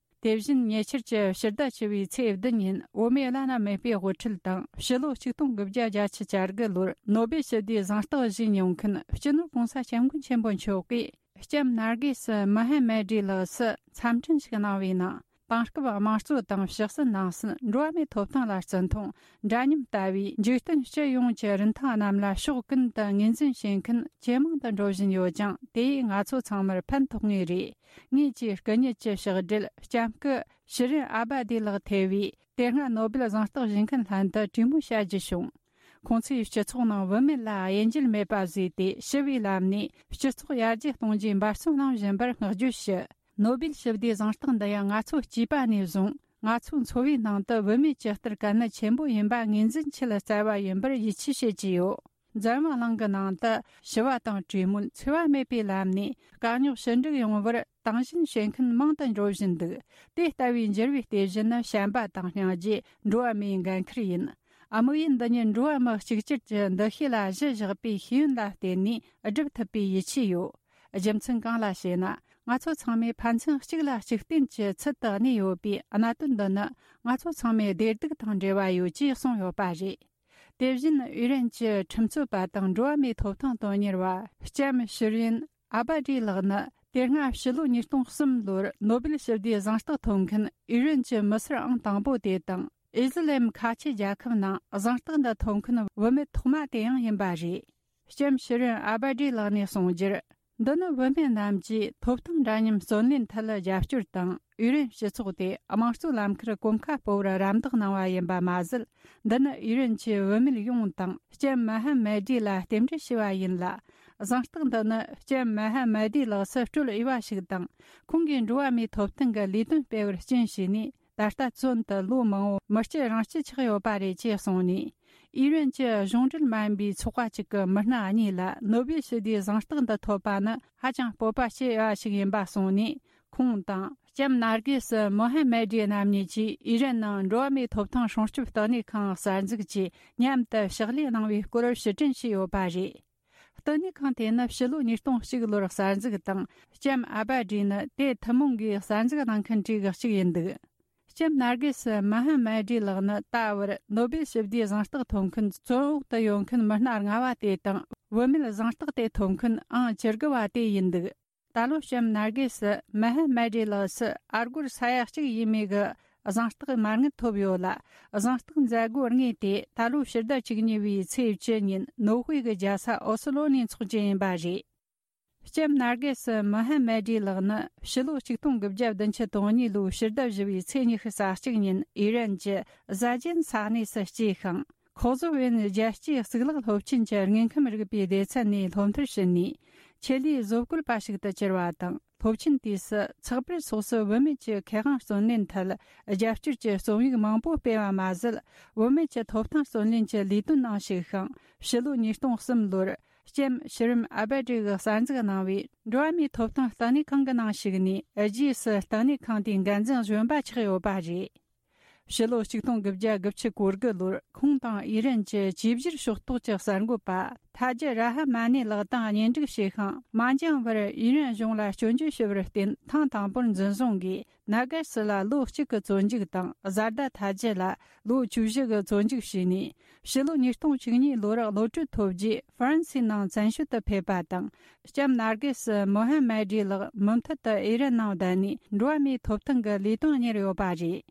དེ་བཞིན་ཉེ་ཆར་གྱི་ཕྱི་ཟླ་བཅུ་བའི་ཚེས་བདུན་ཉིན། བོད་མིའི་བླ་ན་མེད་པའི་དབུ་ཁྲིད་དང་། ཕྱི་ལོ་ཆིག་སྟོང་དགུ་བརྒྱ་བརྒྱད་ཅུ་གྱ་དགུ་ལོར་ནོ་སྦེལ་ཞི་བདེའི་གཟེངས་རྟགས་བཞེས་མྱོང་མཁན་སྤྱི་ནོར་༸གོང་ས་༸སྐྱབས་མགོན་ཆེན་པོ་མཆོག་གིས། ལྕམ་ནར་གེ་སི་མ་ཧ་མ་ཌི་ལགས་སུ་འཚམས་འཕྲིན་ཞིག་གནང་བའི་ནང་། དེང་སྐབས་དམངས་གཙོ་དང་། ཕྱི་སྲིད་ནང་སྲིད། འགྲོ་བ་མིའི་ཐོབ་ཐང་ལ་བརྩི་མཐོང་། འདྲ་མཉམ་ལྟ་བུའི་འཇིག་རྟེན་སྤྱི་ཡོངས་ཀྱི་རིན་ཐང་རྣམས་ལ་ཕྱོགས་ཀུན་ཏུ་ངོས་འཛིན་བྱེད་མཁན་ཇེ་མང་དུ་འགྲོ་བཞིན་ཡོད་ཅིང་། དེ་ཡིས་ང་ཚོ་ཚང་མར་ཕན་ཐོགས་ངེས་རེད། ངེད་ཀྱིས་སྐུ་ཉིད་ཀྱི་ཕྱག་སྦྲེལ་ལྕམ་སྐུ་ཤི་རིན་ཨ་བ་དི་ལགས་ཐེ་བའི་དེ་སྔ་ནོ་སྦེལ་གཟེངས་རྟགས་བཞེས་མཁན་ལྷན་དུ་གྲོས་མོལ་བྱ་རྒྱུ་བྱུང་། ཁོང་ཚོས་སྤྱི་ཚོགས་ནང་བུད་མེད་ལ་དབྱེ་འབྱེད་མེད་པ་བཟོས་ཏེ། ཞི་བའི་ལམ་ནས་སྤྱི་ཚོགས་ཡར་རྒྱས་གཏོང་རྒྱུའི་འབད་བརྩོན་གནང་བཞིན་པར་བསྔགས་བརྗོད་ཞུ། ནོ་སྦེལ་ཞི་བདེའི་གཟེངས་རྟགས་འདི་ཡང་ང་ཚོ་སྐྱེས་པ་ནས་བཟུང་། ང་ཚོའི་འཚོ་བའི་ནང་དུ་བུད་མེད་ཀྱི་ལྟར་གལ་གནད་ཆེན་པོ་ཡིན་པ་ངོས་འཛིན་ཆེད་བསྩལ་བ་ཡིན་པར་ཡིད་ཆེས་བྱེད་ཀྱི་ཡོད། འཛམ་བུ་གླིང་གི་ནང་དུ་ཞི་བ་དང་གྲོས་མོལ། འཚེ་བ་མེད་པའི་ལམ་ནས་དཀའ་རྙོག་ཞི་འགྲིག་ཡོང་བར་དང་ཞེན་བྱེད་མཁན་མང་དུ་འགྲོ་བཞིན་འདུག། དེ་ལྟ་བུའི་འགྱུར་བའི་ལྟེ་གཞི་ནི་བྱམས་པ་དང་སྙིང་རྗེ། འགྲོ་བ་མིའི་འགན་འཁུར་ཡིན། དམིགས་ཡུལ་འདི་ཉིད་འགྲོ་བ་མི་གཅིག་གྱུར་གྱི་འདུ་ཤེས་ལ་གཞི་བཞག་པའི་ཤེས་ཡོན་ལ་བརྟེན་ནས་སྒྲུབ་ཐུབ་པའི་ཡིད་ཆེས་ཡོད། རྒྱུ་མཚན་གང་ལ་ཞེ་ན། ང་ཚོ་ཚང་མས་ཕན་ཚུན་གཅིག་ལ་གཅིག་བརྟེན་གྱི་ཚུལ་དུ་གནས་ཡོད་པའི་གནད་དོན་འདི་ནི། ང་ཚོ་ཚང་མའི་བདེ་སྡུག་དང་འབྲེལ་བ་ཡོད་ཅེས་གསུངས་ཡོད་པ་རེད། དེ་བཞིན་ཨི་རན་གྱི་ཁྲིམས་རྩོད་པ་དང་འགྲོ་བ་མིའི་ཐོབ་ཐང་དོན་གཉེར་བ་ལྕམ་ཤི་རིན་ཨ་བ་ཌི་ལགས་ནི། དེ་སྔ་ཕྱི་ལོ་ཉིས་སྟོང་གསུམ་ལོར་ནོ་སྦེལ་ཞི་བདེའི་གཟེངས་རྟགས་ཐོབ་མཁན་ཨི་རན་གྱི་མི་སེར་ཨང་དང་པོ་དེ་དང་། ཨི་ཟི་ལིམ་ཁ་ཆེ་རྒྱལ་ཁབ་ནང་གཟེངས་རྟགས་འདི་ཐོབ་མཁན་བུད་མེད་ཐོག་མ་དེ་ཡང་ཡིན་པ་རེད། ལྕམ་ཤི་རིན་ཨ་བ་ཌི་ལགས་ནས་གསུངས་རྒྱུར། འདི་ནི་བུད་མེད་རྣམས་ཀྱིས་ཐོབ་ཐང་འདྲ་མཉམ་བརྩོན་ལེན་ཐད་རྒྱབ་སྐྱོར་དང་། ཨི་རན་སྤྱི་ཚོགས་དེ་དམངས་གཙོའི་ལམ་ཁར་གོམ་ཁ་སྤོ་བར་རམ་འདེགས་གནང་བ་ཡིན་པ་མ་ཟད། འདི་ནི་ཨི་རན་གྱི་བུད་མེད་ཡོངས་དང་ལྕམ་མ་ཧ་མ་ཌི་ལ་རྟེན་འབྲེལ་ཞུ་བ་ཡིན་ལ། གཟེངས་རྟགས་འདི་ནི་ལྕམ་མ་ཧ་མ་ཌི་ལགས་སུ་སྤྲོད་འོས་པ་ཞིག་དང་། ཁོང་གིས་འགྲོ་བ་མིའི་ཐོབ་ཐང་གི་ལས་དོན་སྤེལ་བར་རྐྱེན་བྱས་ནས། ད་ལྟ་བཙོན་དུ་ལོ་མང་པོ་མི་སྐྱིད་རང་སྐྱིད་ཆགས་ཡོད་པ་རེད་ཅེས་གསུངས་ནས། ཨི་རན་གྱི་གཞུང་འབྲེལ་མ་ཡིན་པའི་ཚོགས་པ་གཅིག་གི་མི་སྣ་གཉིས་ལ་ནོ་བེལ་ཞི་བདེའི་གཟེངས་རྟགས་འདི་ཐོབ་པ་ནི་ཧ་ཅང་སྤོབས་པ་སྐྱེ་བ་ཞིག་ཡིན་པ་གསུངས་ནས། ཁོང་དང་ལྕམ་ནར་གེ་སི་མོ་ཧ་མ་ཌི་རྣམ་གཉིས་ཀྱིས་ཨི་རན་ནང་འགྲོ་བ་མིའི་ཐོབ་ཐང་སྲུང་སྐྱོབ་ལྟེ་གནས་ཁང་གསར་འཛུགས་ཀྱིས་མཉམ་དུ་ཕྱག་ལས་གནང་བའི་སྐོར་ཕྱིར་དྲན་ཞུས་ཡོད་པ་རེད། ལྟེ་གནས་ཁང་དེ་ནི་ཕྱི་ལོ་ཉིས་སྟོང་གཅིག་ལོར་གསར་འཛུགས་དང་། ལྕམ་ཨ་བ་ཌི་ནི་དེ་ཐུན་མོང་གིས་གསར་འཛུགས་གནང་མཁན་གྲས་ཀྱི་གཅིག་ཡིན་འདུག་ལྕམ་ནར་གེ་སི་མ་ཧ་མ་ཌི་ལགས་ནི་ད་བར་ནོ་བེལ་ཞི་བདེའི་གཟེངས་རྟགས་ཐོབ་མཁན་བཙོན་འོག་ཏུ་ཡོད་མཁན་མི་སྣ་ལྔ་བ་དེ་དང་། བུད་མེད་གཟེངས་རྟགས་དེ་ཐོབ་མཁན་ཨང་བཅུ་དགུ་བ་དེ་ཡིན་འདུག་ད་ལོ་ལྕམ་ནར་གེ་སི་མ་ཧ་མ་ཌི་ལགས་སུ་ཨ་སྒོར་ས་ཡ་གཅིག་ཡས་མས་ཀྱི་གཟེངས་རྟགས་མ་དངུལ་ཐོབ་ཡོད་ལ། གཟེངས་རྟགས་མཛད་སྒོ་དངོས་དེ་ད་ལོ་ཕྱི་ཟླ་བཅུ་གཉིས་པའི་ཚེས་བཅུ་ཉིན་ནོར་ཝེ་གི་རྒྱལ་ས་ཨོ་སི་ལོ་ནས་འཚོགས་རྒྱུ་ཡིན་པ་རེད། ལྕམ་ནར་གེ་སི་མོ་ཧ་མ་ཌི་ལགས་ནི་ཕྱི་ལོ་ཆིག་སྟོང་དགུ་བརྒྱ་བདུན་ཅུ་དོན་གཉིས་ལོའི་ཕྱི་ཟླ་བཞི་པའི་ཚེས་ཉི་ཤུ་རྩ་གཅིག་ཉིན་ཨི་རན་གྱི་ཟ་ཇན་ས་གནས་སུ་སྐྱེས་ཤིང་། ཁོག་ཟོ་བན་རྒྱལ་སྤྱིའི་གཙུག་ལག་སློབ་ཆེན་གྱི་དངོས་ཁམས་རིག་པའི་སྡེ་ཚན་ནས་སློབ་མཐར་ཕྱིན་ནས། ཆེད་ལས་བཟོ་བཀོད་པ་ཞིག་ཏུ་གྱུར་བ་དང་། སློབ་ཆེན་དུས་སུ་ཚགས་པར་སོགས་སུ་བུད་མེད་ཀྱི་ཁེ་དབང་བརྩོན་ལེན་ཐད་རྒྱབ་སྐྱོར་གྱི་རྩོམ་ཡིག་མང་པོ་སྤེལ་བ་མ་ཟད། བུད་མེད་ཀྱི་ཐོབ་ཐང་བརྩོན་ལེན་གྱི་ལས་དོན་ནང་ཞུགས་ཤིང་། ཕྱི་ལོ་ཉིས་སྟོང་གསུམ་ལོར། ལྕམ་ཤི་རིམ་ཨ་བ་ཌི་གིས་གསར་འཛུགས་གནང་བའི་འགྲོ་བ་མིའི་ཐོབ་ཐང་ལྟེ་གནས་ཁང་གི་ནང་ཞུགས་ནས། རྗེས་སུ་ལྟེ་གནས་ཁང་དེའི་འགན་འཛིན་གཞོན་པ་ཆགས་ཡོད་པ་རེད། ཕྱི་ལོ་ཆིག་སྟོང་དགུ་བརྒྱ་དགུ་བཅུ་གོ་དགུ་ལོར་ཁོང་དང་ཨི་རན་གྱི་ཅིའི་ཕྱིར་ཕྱོགས་གཏོགས་ཀྱི་གསར་འགོད་པ་ཐ་ཇི་ར་ཧ་མ་ནི་ལགས་དང་གཉེན་སྒྲིག་བྱས་ཤིང་། མ་འགྱངས་པར་ཨི་རན་གཞུང་ལ་སྐྱོན་བརྗོད་ཞུ་བར་བརྟེན། ཐེངས་དང་པོར་འཛིན་བཟུང་གིས། ནཱ་ག་སི་ལ་ལོ་གཅིག་གི་བཙོན་འཇུག་དང་། བཟའ་ཟླ་ཐ་ཇི་ལ་ལོ་བཅུ་བཞི་གི་བཙོན་འཇུག་བྱས་ནས། ཕྱི་ལོ་ཉིས་སྟོང་བཅུ་གཉིས་ལོར་གློད་གྲོལ་ཐོབ་རྗེས། ཧྥ་རན་སིའི་ནང་བཙན་བྱོལ་དུ་ཕེབས་པ་དང་། ལྕམ་ནར་གེ་སི་མོ་ཧ་མ་ཌི་ལགས་མུ་མཐུད་དུ་ཨི་རན་ནང་བསྡད་ནས། འགྲོ་བ་མིའི་ཐོབ་ཐང་གི་ལས་དོན་གཉེར་ཡོད་པ་རེད།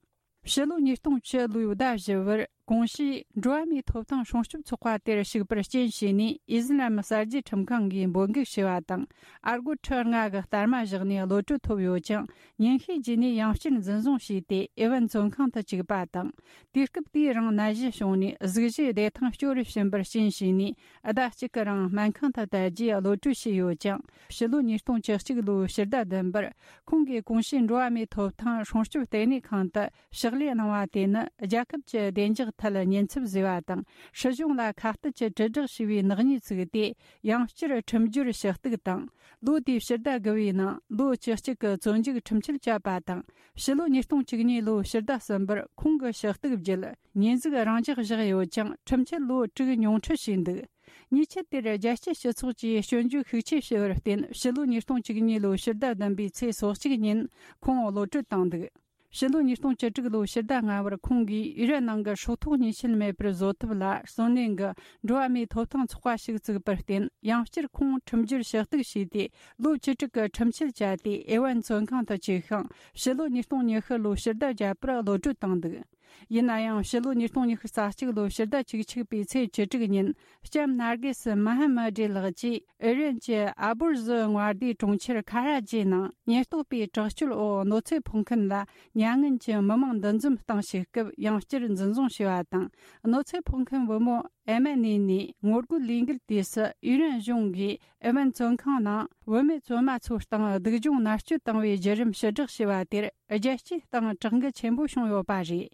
ཕྱི་ལོ་ཉིས་སྟོང་བཅུ་ལོའི་ཟླ་བཞི་པར། གོང་ཞུས་འགྲོ་བ་མིའི་ཐོབ་ཐང་སྲུང་སྐྱོབ་ཚོགས་པ་དེར་ཞུགས་པར་རྐྱེན་བྱས་ནས། ཨི་ཟི་ལམ་གསར་བརྗེ་ཁྲིམས་ཁང་གིས་འབོད་འགུག་བྱས་པ་དང་། ཨ་སྒོར་ཁྲི་ལྔ་གི་སྟར་མ་བཞག་ནས་གློད་གྲོལ་ཐོབ་ཡོད་ཀྱང་། ཉིན་ཤས་རྗེས་ནས་ཡང་བསྐྱར་འཛིན་བཟུང་བྱས་ཏེ། ཨེ་ཝན་བཙོན་ཁང་དུ་བཅུག་པ་དང་། དུས་སྐབས་དེའི་རིང་ནད་གཞི་བྱུང་ནས། གཟུགས་གཞིའི་བདེ་ཐང་སྐྱོ་རུ་ཕྱིན་པར་རྐྱེན་བྱས་ནས། ཟླ་གཅིག་གི་རིང་སྨན་ཁང་དུ་བསྡད་རྗེས་གློད་གྲོལ་བྱས་ཡོད་ཀྱང་། ཕྱི་ལོ་ཉིས་སྟོང་བཅུ་གཅིག་ལོའི་ཕྱི་ཟླ་བདུན་པར། ཁོང་གིས་གོང་ཞུས་འགྲོ་བ་མིའི་ཐོབ་ཐང་སྲུང་སྐྱོབ་ལྟེ་གནས་ཁང་དུ་ཕྱག་ལས་གནང་བ་དེ་ནི། རྒྱལ་ཁབ་ཀྱི་བདེ་འཇགས་ཐད་ཉེན་ཚབས་བཟོས་པ་དང་། སྲིད་གཞུང་ལ་ཁ་གཏད་ཀྱི་དྲིལ་བསྒྲགས་བྱས་པའི་ནག་ཉེས་བཙུགས་ཏེ། ཡང་བསྐྱར་ཁྲིམས་སྦྱོར་ཞུ་གཏུག་དང་། ལོ་དེའི་ཕྱི་ཟླ་དགུ་པའི་ནང་ལོ་བཅུ་གཅིག་གི་བཙོན་འཇུག་ཁྲིམས་ཆད་བཅད་པ་དང་། ཕྱི་ལོ་ཉིས་སྟོང་བཅུ་གཉིས་ལོའི་ཕྱི་ཟླ་གསུམ་པར་ཁོང་གི་ཞུ་གཏུག་བརྒྱུད། ཉེས་འཛུགས་རང་འཇགས་བཞག་ཡོད་ཀྱང་། ཁྲིམས་ཆད་ལོ་དྲུག་ཉུང་འཕྲི་བྱས་འདུག་ཉེས་ཆད་དེར་རྒྱལ་སྤྱིའི་སྤྱི་ཚོགས་ཀྱིས་སྐྱོན་བརྗོད་ཤུགས་ཆེ་བྱས་པར་བརྟེན། ཕྱི་ལོ་ཉིས་སྟོང་བཅུ་གཉིས་ལོའི་ཕྱི་ཟླ་བདུན་པའི་ཚེས་སོ་གཅིག་ཉིན་ཁོང་གློད་གྲོལ་བཏང་འདུག་ཕྱི་ལོ་ཉིས་སྟོང་བཅུ་དྲུག་ལོའི་ཕྱི་ཟླ་ལྔ་པར་ཁོང་གིས་ཨི་རན་ནང་གི་སྲོག་ཐོག་ཉེས་ཆད་མེད་པར་བཟོ་ཐབས་ལ་བརྩོན་ལེན་གྱི་འགྲོ་བ་མིའི་ཐོབ་ཐང་ཚོགས་པ་ཞིག་བཙུགས་པར་བརྟེན། ཡང་བསྐྱར་ཁོང་ཁྲིམས་སྦྱོར་ཞུ་གཏུག་བྱས་ཏེ། ལོ་བཅུ་དྲུག་གི་ཁྲིམས་ཆད་བཅད་དེ། ཨེ་ཝན་བཙོན་ཁང་དུ་བཅུག་ཤིང་། ཕྱི་ལོ་ཉིས་སྟོང་ཉི་ཤུ་ལོའི་ཕྱི་ཟླ་བརྒྱད་པར་གློད་གྲོལ་བཏང་འདུག་ཡིན་ན་ཡང་། ཕྱི་ལོ་ཉིས་སྟོང་ཉི་ཤུ་རྩ་གཅིག་ལོའི་ཕྱི་ཟླ་བཅུ་གཅིག་པའི་ཚེས་བཅུ་དྲུག་ཉིན། ལྕམ་ནར་གེ་སི་མ་ཧ་མ་ཌི་ལགས་ཀྱིས་ཨི་རན་གྱི་ཨ་བུར་ཟི་མངའ་སྡེའི་གྲོང་ཁྱེར་ཁ་ར་ཇི་ནང་ཉེན་རྟོག་པས་དྲག་སྤྱོད་འོག་གནོད་འཚེ་ཕོག་མཁན་ལ་མྱ་ངན་གྱི་མི་མང་འདུ་འཛོམས་བཏང་བྱེད་སྐབས་ཡང་བསྐྱར་འཛིན་བཟུང་བྱས་པ་དང་། གནོད་འཚེ་ཕོག་མཁན་བུ་མོ་ཨེ་མ་ནེ་ནི་ངོ་རྒོལ་ལས་འགུལ་དུས་སུ་ཨི་རན་གཞུང་གིས་ཨེ་ཝན་བཙོན་ཁང་ནང་བུད་མེད་བཙོན་མ་ཚོའི་སྟེང་སྡུག་སྦྱོང་མནར་གཅོད་བཏང་བའི་བརྒྱུད་རིམ་ཕྱིར་བསྒྲགས་བྱས་པ་དེར་རྒྱལ་སྤྱིའི་སྟེང་དྲག་འགུལ་ཆེན་པོ་བྱུང་ཡོད་པ་རེད།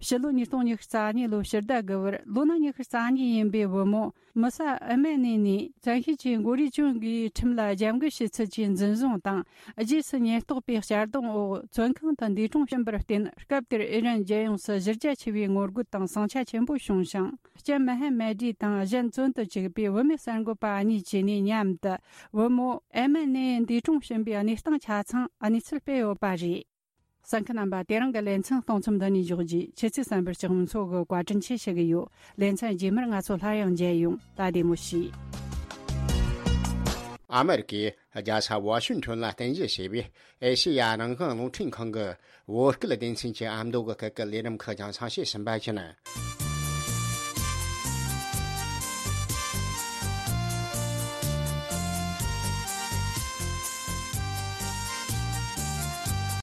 ཕྱི་ལོ་ཉིས་སྟོང་ཉི་ཤུ་རྩ་གཉིས་ལོའི་ཕྱི་ཟླ་དགུ་པར་ལོ་ན་ཉི་ཤུ་རྩ་གཉིས་ཡིན་པའི་བུ་མོ་མི་ས་ཨེ་མེ་ནི་ནི་བཙན་ཤེད་ཀྱིས་མགོ་རུས་གྱོན་གྱི་ཁྲིམས་ལ་རྒྱབ་འགལ་བྱས་ཚུལ་གྱིས་འཛིན་བཟུང་དང་། རྗེས་སུ་ཉེན་རྟོག་པའི་གཅར་རྡུང་འོག་བཙོན་ཁང་དུ་འདས་གྲོངས་ཕྱིན་པར་བརྟེན། སྐབས་དེར་ཨི་རན་རྒྱལ་ཡོངས་སུ་གཞི་རྒྱ་ཆེ་བའི་ངོ་རྒོལ་དང་ཟིང་ཆ་ཆེན་པོ་བྱུང་ཞིང་། ལྕམ་མ་ཧེ་མ་ཌི་དང་གཞན་བཙོན་དུ་བཅུག་པའི་བུད་མེད་གསར་འགོད་པ་གཉིས་བཅས་ནས་མཉམ་དུ་བུ་མོ་ཨེ་མེ་ནི་འདས་གྲོངས་ཕྱིན་པའི་གནས་སྟངས་ཆ་ཚང་གནས་ཚུལ་སྤེལ་ཡོད་པ་རེད། གསན་མཁན་རྣམ་པ། དེ་རིང་གི་ལེ་ཚན་གཏོང་མཚམས་འདི་ནས་འཇོག་རྒྱུ། ཁྱེད་ཚོས་གསན་པར་ལྕགས་མོ་མཚོ་གིས་བཀའ་དྲིན་ཆེ་ཞུ་གི་ཡོད། ལེ་ཚན་རྗེས་མར་ང་ཚོ་སླར་ཡང་མཇལ་ཡོང་། ད་བདེ་མོ་བྱོས། ཨ་མེ་རི་ཀའི་རྒྱལ་ས་ཝ་ཤིང་ཊོན་ལ་རྟེན་གཞི་བྱས་པའི་ཨེ་ཤེ་ཡ་རང་དབང་རླུང་འཕྲིན་ཁང་གི་བོད་སྐད་སྡེ་ཚན་གྱི་ཨ་མདོ་གི་སྐད་ཀྱི་ལས་རིམ་ཁག་རྒྱང་སྲིང་བྱེད་བཞིན་པ་ཡིན།